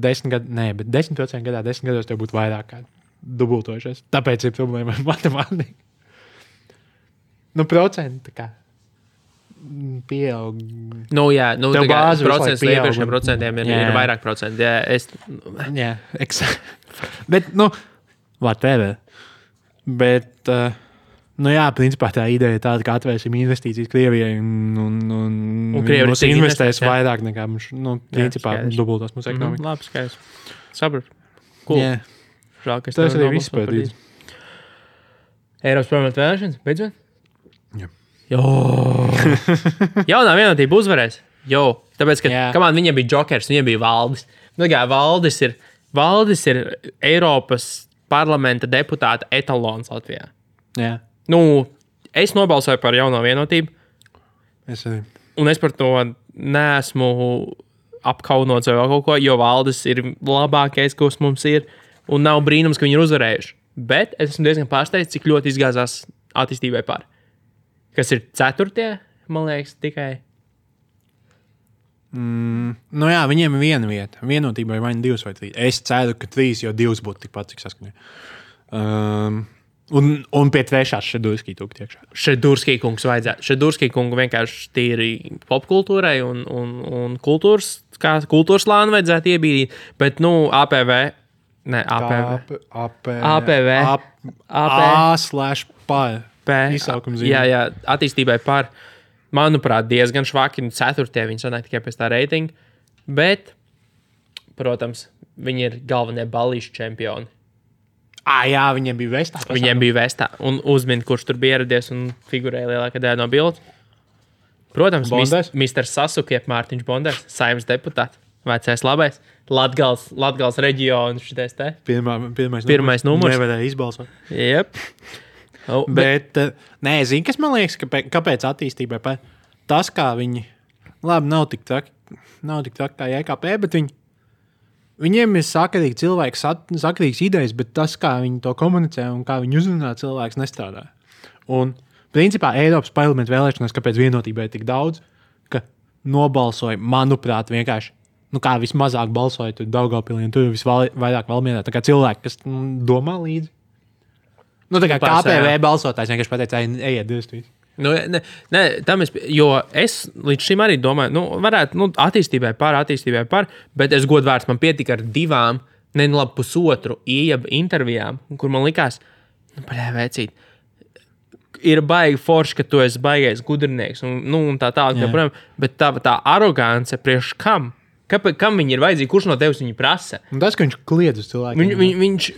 10 gadu, bet 10% gadā 10 gados tev būtu vairāk kā dubultojušies. Tāpēc ir problēma ar matemātiku. Procenti kā pieaug. Tev bāzi procents iepriekšējiem procentiem ir vairāk procenti. Jā, Bet, whatever. Bet Nu jā, principā tā ideja ir tāda, ka atvērsim investīcijas Krievijai un Krievi mums investēs vairāk nekā mums, principā, dubultos mūsu ekonomiku. Labi, skaidrs. Sapratu. Cool. Yeah. Žēl, ka es Tas arī viss pēdīt. Eiropas parlamenta vēlēšanas, beidzot? Jā. Jaunā vienotība uzvarēs. Tāpēc, ka kamān viņiem bija Jokers, viņiem bija Valdis. Nu, kā Valdis ir Eiropas parlamenta deputāta etalons Latvijā. Jā. Nu, es nobalsoju par jauno vienotību. Es arī. Un es par to neesmu apkaunots vai kaut ko, jo Valdis ir labākais, kas mums ir. Un nav brīnums, ka viņi ir uzvarējuši. Bet es esmu diezgan pārsteigts, cik ļoti izgāzās attīstībai par. Kas ir 4. man liekas, tikai. Nu jā, viņiem ir viena vieta. Vienotībai vai 2 vai 3. Es ceru, ka 3, jo 2 būtu tikpat, cik saskaņā. Un pie 3. Šedurskī tūk tiekšā. Šedurskī kungs vajadzētu. Šedurskī kungu vienkārši tīri popkultūrai un kultūras lānu vajadzētu iebīdīt. Bet, APV. Ne, APV. A/P. Izsaukums zīme. Jā, attīstībai par, manuprāt, diezgan švaki. 4. viņi sanāk tikai pēc tā reitinga. Bet, protams, viņi ir galvenie ballīšu čempioni. Jā, viņiem bija vestā. Viņiem bija vestā. Un uzmin, kurš tur bija ieradies un figurēja lielākā daļa no bildes. Protams, Mr. Sasuke, Mārtiņš Bonders, Saeimas deputāts, vecais labais, Latgales reģionu šitais te. Pirmais numurs. Nevarēja izbalsot. Jep. Bet, zini, kas man liekas, kāpēc attīstībai tas, kā viņi, labi, nav tik traki kā JKP, bet viņiem ir sakarīgi cilvēki, sakarīgs idejas, bet tas, kā viņi to komunicē un kā viņi uzrunā cilvēks, nestrādā. Un, principā, Eiropas parlamenta vēlēšanās, kāpēc vienotībai tik daudz, ka nobalsoja, manuprāt, vienkārši, kā vismazāk balsoja tur Daugavpilī un tur visvairāk Valmierā, tā kā cilvēki, kas domā līdzi. Tā kā KPV balsotājs vienkārši pateica, ejiet, divas. Jo es līdz šim arī domāju, varētu attīstībai par, bet es godvārds man pietika ar 2, pusotru ieba intervijām, kur man likās, vecīt, ir baigi forši, ka tu esi baigais gudrinieks un tā tālāk, bet tā arogance priekš kam? Kam viņi ir vajadzīgi? Kurš no tevis viņu prasa? Un tas, ka viņš kliedz uz cilvēkiem.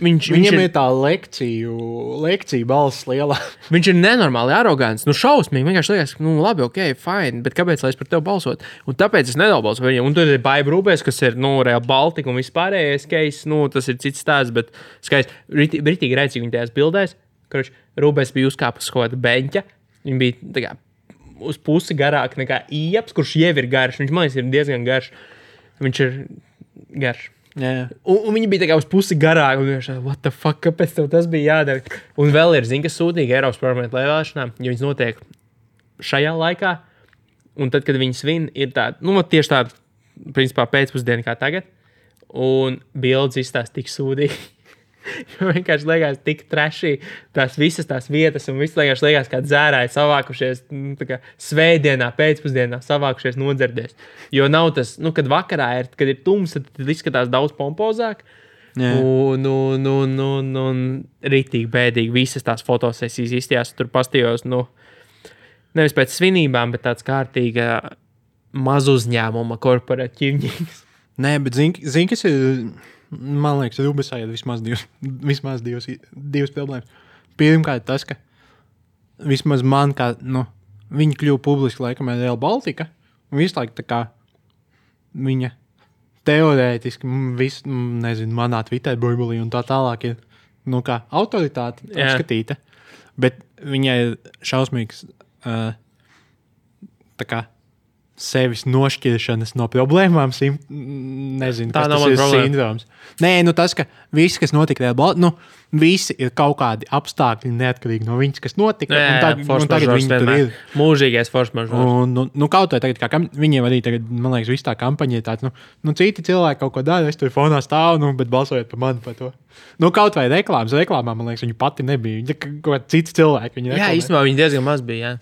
Viņam ir tā lekcija balss lielā. Viņš ir nenormāli arogants. Šausmīgi. Vienkārši liekas, labi, ok, fine, bet kāpēc lai es par tevi balsot? Un tāpēc es nebalsoju par viņiem. Un tad ir Baiba Rūbēs, kas ir, Real Baltica un vispārējais case. Tas ir cits stāsts, bet skaisti. Britīgi rēcīgi viņi tajās bildēs. Rūbēs bija uzkāpus kaut kāda beņķa. Viņi bija tā kā uz pusi garāk nekā Ieps, kurš jau ir garš. Viņš, man liekas, ir diezgan garš. Viņš ir garš. Yeah. Un viņi bija tā kā uz pusi garāk. Un viņš what the fuck, kāpēc tev tas bija jādara? Un vēl ir, kas sūtīgi Eiropas parlamenta vēlēšanām, jo viņas notiek šajā laikā. Un tad, kad viņi svin, ir tāda, tieši tāda, principā, pēcpusdiena kā tagad. Un bildes izstāsta tik sūdīgi. Jo vienkārši liekas tik trešī visas tās vietas un viss liekas kā dzērāji savākušies svētdienā, pēcpusdienā savākušies nodzerdies. Jo nav tas, kad vakarā kad ir tums, tad izskatās daudz pompozāk. Yeah. Un ritīgi bēdīgi visas tās fotosesijas izstījās. Tur pastījos, nevis pēc svinībām, bet tāds kārtīga mazuzņēmuma korporatīvņīgs. Nē, bet zini, kas ir... Man liekas, Rūbesā ir vismaz divas problēmas. Pirmkārt, tas, ka vismaz man, kā viņi kļuva publiski laikam ar Real Baltica, un visu laiku tā kā viņa teorētiski, manā Twitter burbulī un tā tālāk ir, kā autoritāte apskatīta, bet viņai ir šausmīgs tā kā sevis nošķiršanas no problēmām, nezinu, tā kas tas ir sindroms. Nē, tas, ka visi, kas notika, visi ir kaut kādi apstākļi neatkarīgi no viņas, kas notika, un tagad viņi tur ir. Mūžīgais force majeure. Kaut vai tagad, kā viņiem arī tagad, man liekas, viss tā kampaņa ir tāds, citi cilvēki kaut ko dara, es tur fonā stāvu, bet balsojot par mani par to. Kaut vai reklāmām, man liekas, viņa pati nebija, viņa kaut kā cits cilvēki. Jā, īstenībā viņa diezgan maz bija, jā.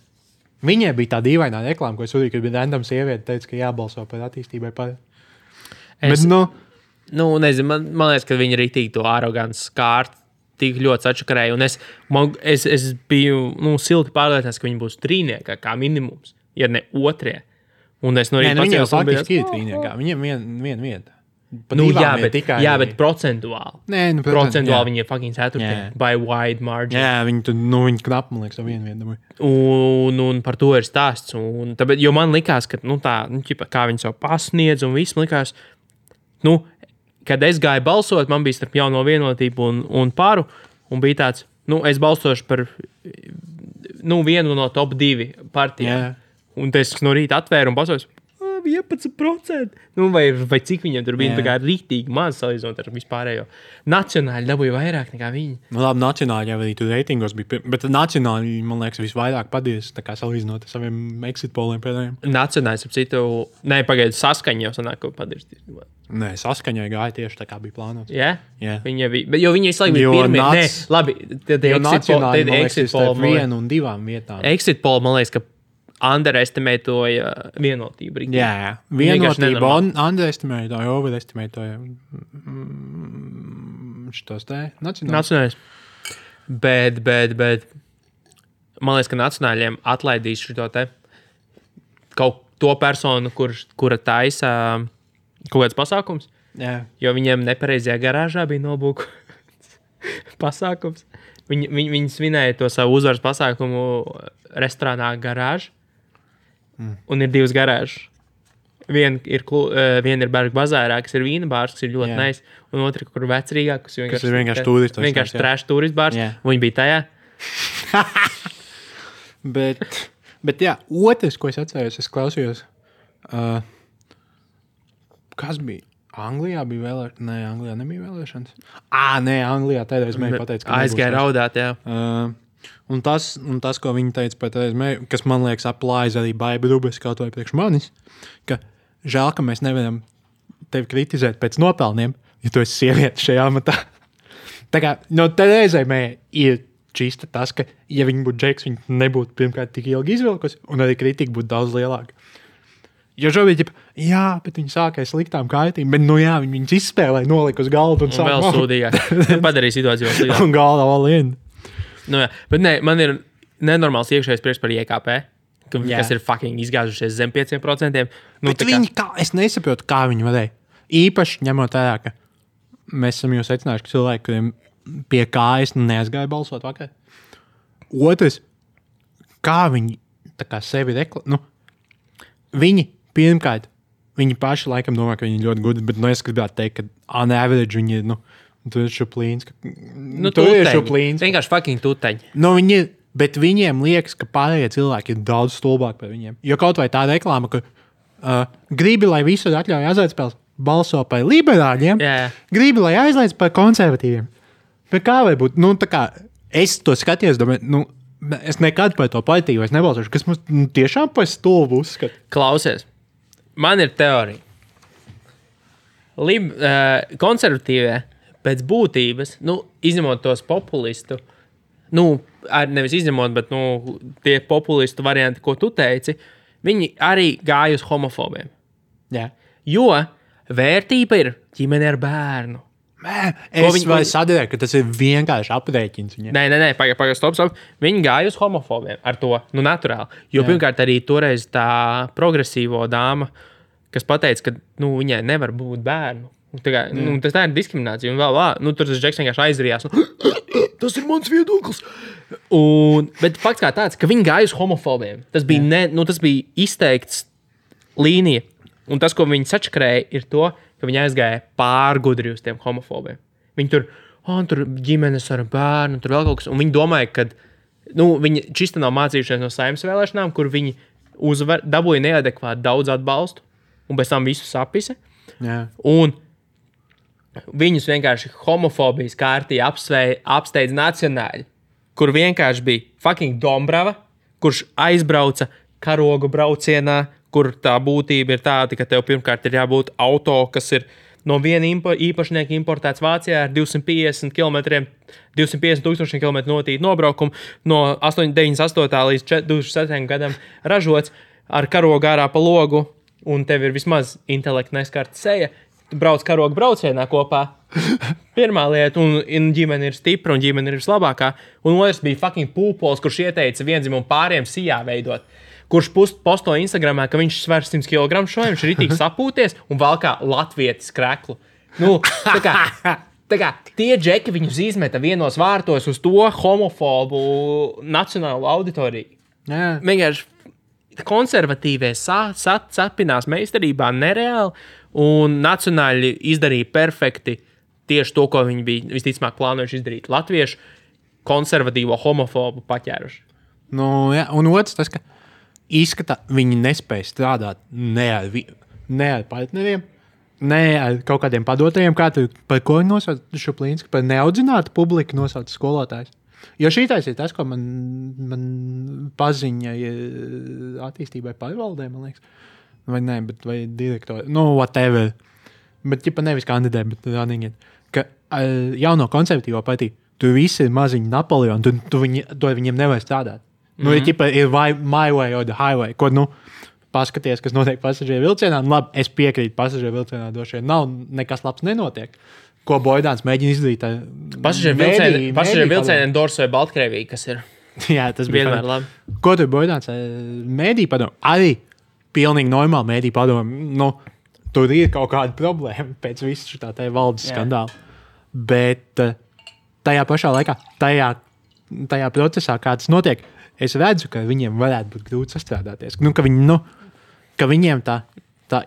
Viņai bija tā dīvainā reklāma, ko es uzrīju, kad bija random sieviete, teica, ka jābalso par attīstībai par. Bet, nezinu, man liekas, ka viņi ritīgi to arogants skārt tik ļoti sačakarēja. Un es biju silti pārliecināts, ka viņi būs trīniekā, kā minimums, ja ne otrie. Un es no rīta viņi jau faktiski ir trīniekā. Viņiem viena vieta. Bet procentuāli. Procentuāli viņi ir fucking ceturtie. By wide margin. Jā, viņi knapi, man liekas, vienu vietu. Un par to ir stāsts. Tāpēc, jo man likās, ka kā viņi savu pasniedz un viss, man likās, kad es gāju balsot, man bija starp Jauno Vienotību un Paru, un bija tāds, es balsošu par vienu no top 2 partijām. Un es no rīta atvēru un balsoju 11%. Vai cik viņiem tur bija? Tā kā rītīgi maz salīdzinot ar vispārējo. Nacionāļi dabūja vairāk nekā viņi. Labi, nacionāļi jau arī tur reitingos bija. Bet nacionāļi, man liekas, visvairāk padies, tā kā salīdzinot ar saviem exit poliem pēdējiem. Nacionāļi, ap citu, pagaidu saskaņu jau sanāk, ko padies. Nē, saskaņai gāja tieši tā kā bija plānots. Jā? Jo viņi visu laiku bija pirmie. Nē, labi, tad exit poll vienu un 2 vietām. Exit poll, man liekas, ka underestimētoja vienotību. Jā, vienotību underestimētoja, overestimētoja šitos te nacionālis. Bet man liekas, ka nacionāļiem atlaidīs šito te kaut to personu, kura taisa kaut kāds pasākums. Jā. Jo viņiem nepareizajā garāžā bija nobūkots pasākums. Viņi svinēja to savu uzvaras pasākumu restorānā garāžu. Un ir 2 garāžas. Viena ir Berga bazārā, kas ir vīna bārs, kas ir ļoti nice, un otra, kur vecrīgā, kas ir vienkārši turistu. Vienkārši trash turistu bārs, un viņi bija tajā. bet jā, otrs, ko es atceros, es klausījos, kas bija? Anglijā bija vēlēšanas? Nē, Anglijā nebija vēlēšanas. Nē, Anglijā tādreiz mēģināja pateikt, ka aizgāja raudāt, jā. Un tas, ko viņi teica par tādreiz mēģinājumu, kas man liekas aplājas arī Baiba Rubes kaut vai priekš manis, ka žēl, ka mēs nevaram tevi kritizēt pēc nopelniem, ja tu esi sieviete šajā amatā. Tā kā, tādreizai ir čista tas, ka, ja viņi būtu džeks, viņi nebūtu pirmkārt tik ilgi izvilkusi, un arī kritika būtu daudz lielāka. Jo šobrīd, bet viņi sākās sliktām kārtīm, bet, viņus izspēlēja, nolika uz galdu un sāk. Un vēl sūdīgāk. Padarīja situāciju vēl sliktāk. Un galda all in. Bet nē, man ir nenormāls iekšējais prieks par IKP, kas ir fucking izgāzušies zem 5%. Bet es nesaprotu, kā viņi varēja. Īpaši ņemot vērā, ka mēs esam jau secinājuši, ka cilvēki, kuriem pie kājas neaizgāja balsot vakar. Otrs, kā viņi tā kā sevi viņi pirmkārt, viņi paši laikam domā, ka viņi ļoti gudri, bet es gribētu teikt, ka on average viņi ir, tur ir šuplīns. Tur ir šuplīns. Vienkārši fucking tuteņi. Viņi ir, bet viņiem liekas, ka pārējie cilvēki ir daudz stulbāki par viņiem. Jo kaut vai tā reklāma, ka gribi, lai visur atļauj azartspēles, balso par liberāļiem, gribi, lai aizliedz par konservatīviem. Bet kā var būt? Tā kā es to skatījos, domāju, es nekad par to partiju vairs nebalsošu, kas mums tiešām par stulbu uzskata. Klausies. Man ir teorija. Konservatīvie pēc būtības, izņemot tos populistu, nevis izņemot, bet tie populistu varianti, ko tu teici, viņi arī gāja uz homofobiem. Jā. Jo vērtība ir ģimene ar bērnu. Es sadarēju, ka tas ir vienkārši aprēķins. Nē, pagaid, stop. Viņi gāja uz homofobiem ar to, naturāli. Jo pirmkārt arī toreiz tā progresīvo dāma, kas pateica, ka viņai nevar būt bērnu. Tas ir diskriminācija. Un vēl, tur tas džeks vienkārši aizrījās. Tas ir mans viedoklis. Bet fakts kā tāds, ka viņi gāja uz homofobiem. Tas bija, tas bija izteikts līnija. Un tas, ko viņi sačakrēja, ir to, ka viņi aizgāja pārgudri uz tiem homofobiem. Viņi tur ģimenes ar bērnu, tur vēl kaut kas. Un viņi domāja, ka viņi čista nav mācījušies no Saeimas vēlēšanām, kur viņi dabūja neadekvāti daudz atbalstu un pēc tam visu sapise. Jā. Un viņus vienkārši homofobijas kārtī apsteidz nacionāļi, kur vienkārši bija fucking Dombrava, kurš aizbrauca karogu braucienā, kur tā būtība ir tāda, ka tev pirmkārt ir jābūt auto, kas ir no viena īpašnieka importēts Vācijā ar 250 tūkstošiem kilometru notīti nobraukumu, no 98. līdz 2007. gadam ražots ar karogu ārā pa logu, un tev ir vismaz intelekta neskarta seja. Tu brauc karogu braucienā kopā, Pirmā lieta, un ģimene ir stipra, un ģimene ir vislabākā. Un otrs bija fucking pūpols, kurš ieteica vienzimumu pāriem sijā veidot. Kurš posto Instagramā, ka viņš sver 100 kg šoju, viņš ir ritīgi sapūties un valkā latvietis kreklu. Nu, tā kā tie džeki viņus izmeta vienos vārtos uz to homofobu nacionālo auditoriju. Vienkārši konservatīvie sapinās meistarībā nereāli, un nacionāļi izdarīja perfekti tieši to, ko viņi bija visticamāk plānojuši izdarīt. Latviešu konservatīvo homofobu paķēruši. Nu, jā, un otrs tas, ka izskatā viņi nespēja strādāt ne ar partneriem, ne ar kaut kādiem padotajiem, kā tu par ko viņi nosauc Šuplīnski, par neaudzinātu publiku nosauc skolotājs. Jo šītais ir tas, ko man paziņa attīstībai pārvaldē, man liekas. Vai ne, vai direktori, whatever. Bet, ja nevis kandidē, bet running it. Ka jauno konservatīvo partiju, tu visi ir maziņi Napoleoni, tu viņiem nevar strādāt. Ir my way or the highway, ko, paskaties, kas notiek pasažieru vilcienā. Labi, es piekrītu pasažieru vilcienā došie. Nav nekas labs nenotiek. Ko Boidāns mēģina izdarīt. Pasažieru vilcienā endorsoja Baltkrievija, kas ir. Jā, tas bija vienmēr labi. Ko tur Boidāns mēdī padomu? Arī pilnīgi normāli mēdī padomu. Tur ir kaut kāda problēma pēc visu šitā te valdes skandāla. Bet tajā pašā laikā, tajā procesā, kā tas notiek, es redzu, ka viņiem varētu būt grūti sastrādāties. Ka viņiem tā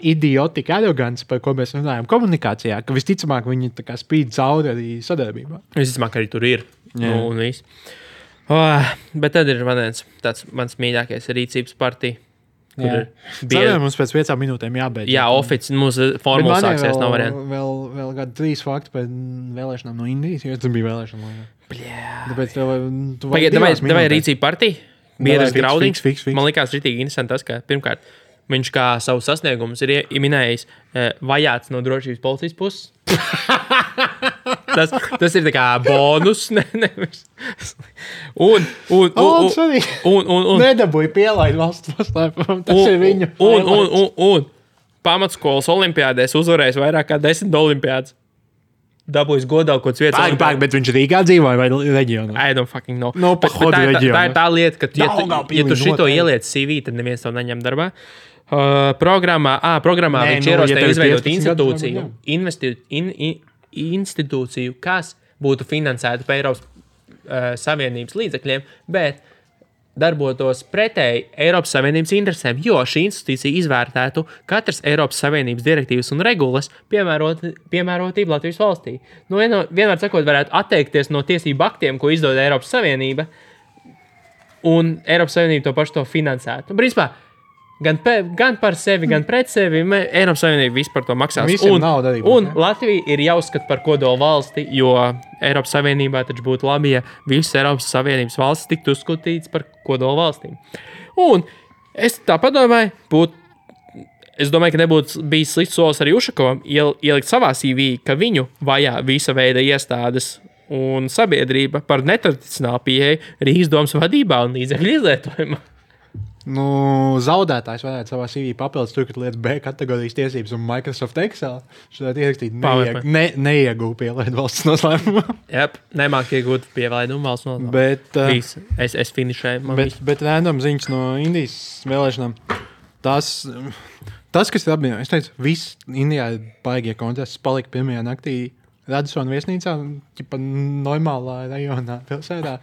idiotika arogance, par ko mēs runājam komunikācijā, ka visticamāk viņi tā kā spīd cauri arī sadarbībā. Visticamāk arī tur ir. Un viss. Bet tad ir mans mīļākais rīcības partija. Mums pēc 5 minūtēm jābeidz. Jā, mūsu formula sāksies, nav variantu. Vēl kādi 3 fakti par vēlēšanām no Indijas, jo tas bija vēlēšana. Tāpēc Vai rīcība partija? Biedrs Graudiņš. Fiks. Man likās ritīgi interesanti tas, ka pirmkārt, viņš kā savu sasniegumus ir minējis vajāts no drošības policijas puses. tas ir tā kā bonus. Un nedabūja pielaid valsts paslēpumu. Tas ir viņu. Un pamatskolas olimpiādēs uzvarējis vairāk kā 10 olimpiādas. Dabūjis godā kaut kāds vietas. Bet viņš Rīgā dzīvoja vai reģionā? I don't fucking know. Tā ir tā lieta, ka ja tu šito ieliec CV, tad neviens to neņem darbā. Programmā viņš ierosināja izveidot institūciju, kas būtu finansēta pa Eiropas Savienības līdzekļiem, bet darbotos pretēji Eiropas Savienības interesēm, jo šī institūcija izvērtētu katras Eiropas Savienības direktīvas un regulas piemērotību Latvijas valstī. Vienmēr sakot, varētu atteikties no tiesību aktiem, ko izdod Eiropas Savienība, un Eiropas Savienība to pašu to finansētu. Principā, gan par sevi, gan pret sevi, Eiropas Savienība vispār to maksās. Un Latvija ir jāuzskata par kodolu valsti, jo Eiropas Savienībā taču būtu labi, ja visas Eiropas Savienības valstis tiktu uzskatītas par kodolu valstīm. Un es tā padomāju, es domāju, ka nebūtu bijis slikts solis arī Ušakovam ielikt savā CV, ka viņu vajā visa veida iestādes un sabiedrība par netradicionālu pieeju Rīgas domas vadībā un līdzekļu izlietojumā. Zaudētājs varētu savā CV papildus tur, kad lietas B kategorijas tiesības un Microsoft Excel. Šodien ierakstīt neiegūtu pielaidu valsts noslēpumu. Nemāk iegūt pielaidu valsts noslēpumu. Bet, es finišēju. Bet random ziņas no Indijas vēlēšanām. Tas, kas ir apvienojis, es teicu, viss Indijā baigie kontests palika pirmajā naktī Radisona viesnīcā, ķipa normālā rajonā pilsētā,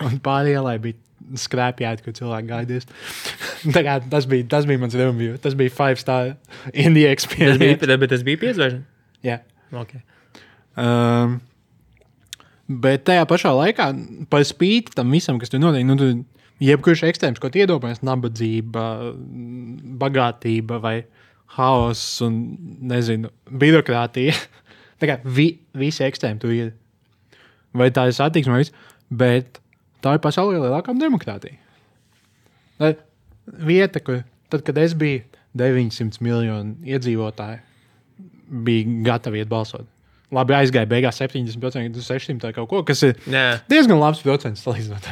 un pāri ielai bija skrēpjāti, kur cilvēki gaidīs. Tas bija mans review. Tas bija 5-star India experience. Bet tas bija 5 zvaigžņu? Jā. Okay. Bet tajā pašā laikā, par spīti tam visam, kas tur notiek, tu jebkurš ekstrēms, ko iedomājies, nabadzība, bagātība vai haoss un, nezinu, birokrātija. Tā kā visi ekstrēmi tur ir. Vai tā ir satiksme, bet tā ir pasaulē lielākā demokrātija. Vieta, kur tad, kad es biju 900 miljonu iedzīvotāji, bija gatavi iet balsot. Labi, aizgāja beigās 70%, 600 kaut ko, kas ir diezgan labs procents salīdzinot.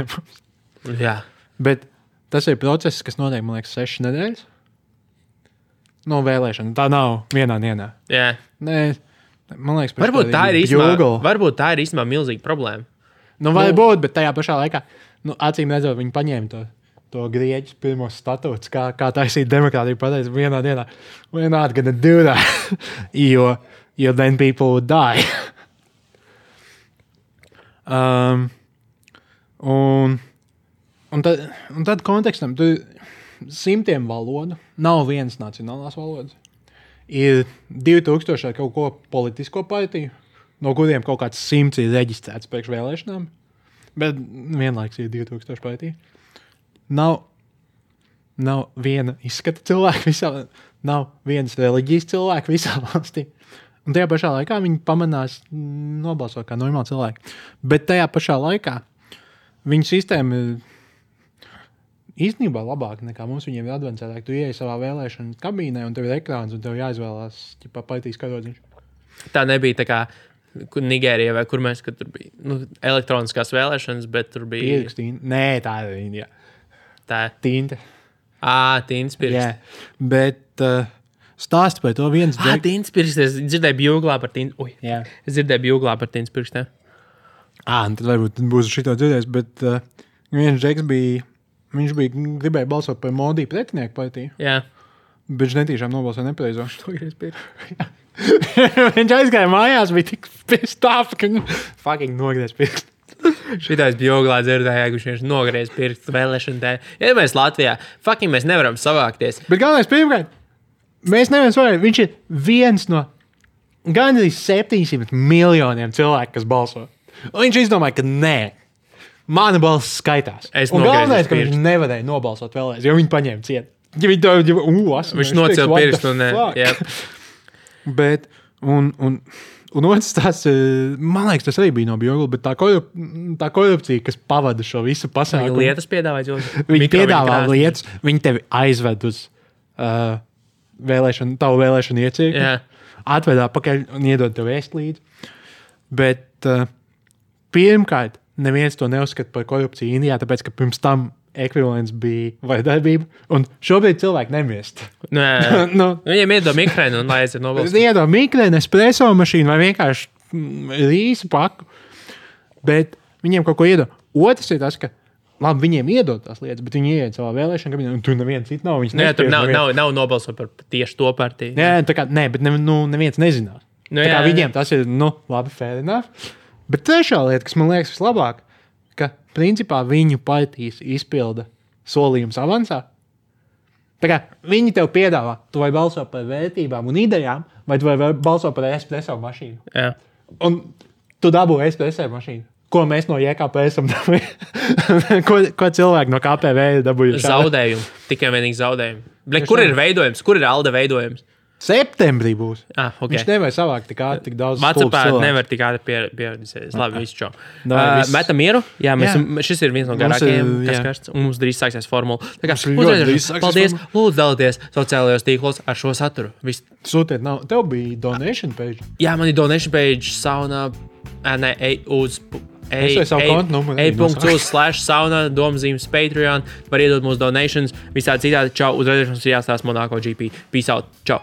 Jā. Bet tas ir process, kas notiek, man liekas, 6 nedēļas. No vēlēšana. Tā nav vienā dienā. Jā. Nē, Man liekas, varbūt tā ir īstenībā milzīga problēma. Nu, varbūt, bet tajā pašā laikā, acīm redzot, viņi paņēma to grieķus pirmos statūtus, kā taisīt demokrātiju, pateica vienā dienā, we're not gonna do that, jo then people would die. Un tad kontekstam, tu simtiem valodu, nav vienas nacionālās valodas. Ir 2000 kaut ko politisko partiju, no kuriem kaut kāds 100 ir reģistrēts priekš vēlēšanām, bet vienlaiks ir 2000 partiju. Nav viena izskata cilvēka visā, nav vienas reliģijas cilvēka visā valstī. Un tajā pašā laikā viņi pamanās nobalsot kā normāli cilvēki. Bet tajā pašā laikā viņu sistēma ir īstenībā labāka nekā mums. Viņiem ir advancētāk. Tu ieej savā vēlēšana kabīnē un tev ir ekrāns un tev jāizvēlās partijas karodziņš. Tā nebija tā kā Nigērijā vai kur mēs, kad tur bija elektroniskās vēlēšanas, bet tur bija... Pierakstīni. Nē, tā ir Indijā. Tā ir? Tinte. Tintas pirksts. Jā, bet stāsti par to viens... Tintas pirksts. Es dzirdēju bjūglā par tintas... Es dzirdēju bjūglā par tintas pirkstiem. Tad varbūt būs šito dzirdējis, bet viens džeks bija... Viņš gribēja balsot par Modi pretinieku partiju. Jā. Bet viņš netīšām nobalsoja nepareizo. Viņš aizgāja mājās, bija tik pissed off, ka fucking nogriez pirkstu. Šitais bjoglā dzirdēja, ka viņš nogriez pirkstu vēlēšanu dēļ. Ja mēs Latvijā, fucking mēs nevaram savākties. Bet galvenais pirmkārt, mēs nevaram savākt. Viņš ir viens no gandrīz 700 miljoniem cilvēku, kas balso. Un viņš izdomāja, ka nē. Mana balss skaitās. Un galvenais, ka viņš nevarēja nobalsot vēlreiz, jo viņi paņēma ciet. Viņš nocēla pirkstu un Bet, un otrs tas, man liekas, tas arī bija no Bjogla, bet tā korupcija, kas pavada šo visu pasākumu. Viņi lietas piedāvāja. Viņi piedāvā lietas, viņi tevi aizved uz tavu vēlēšanu iecirkni, atved atpakaļ un iedod tev ēst līdzi. Bet pirmkārt, neviens to neuzskata par korupciju Indijā, tāpēc, ka pirms tam ekvivalents bija vardarbība, un šobrīd cilvēki nemiest. Viņiem iedod mikrēnu un lai aiziet nobalsot. Iedod mikrēnu, espresso mašīnu vai vienkārši rīsu paku, bet viņiem kaut ko iedod. Otrs ir tas, ka labi, viņiem iedod tās lietas, bet viņi ieiet savā vēlēšana kabinetā, un tur neviens cits nav. Tur nav nobalsot par tieši to partiju. Bet neviens nezinās. Viņiem tas ir, labi, fair enough. Bet trešā lieta, kas man liekas vislabāk, ka principā viņu partijas izpilda solījums avansā. Tā kā viņi tev piedāvā, tu vai balso par vērtībām un idejām, vai tu vai balso par espresso mašīnu. Jā. Un tu dabū espresso mašīnu. Ko mēs no JKP esam dabūjuši? ko cilvēki no KPV ir dabūjuši? Zaudējumu. Tikai vienīgi zaudējumu. Kur ir veidojums? Kur ir Alde veidojums? Septembrī būs. Okay. Viņš nevar savākt tik daudz WhatsAppā nevar tik ātri pieredzēt. Labi, visu čau. Metam mieru? Jā, šis ir viens no garākajiem, kas karsts. Un mums drīz sāksies formula. Tā kā paldies, lūdzu dalieties sociālajos tīklos ar šo saturu. Sūtiet, tev bija donation page? Jā, man ir donation page sauna, e.uz/sauna domzīmes Patreon. Var iedot mūsu donations. Visādi citādi. Čau, uz redzēšanos ir jāstāsta Monako GP. Peace out. Čau.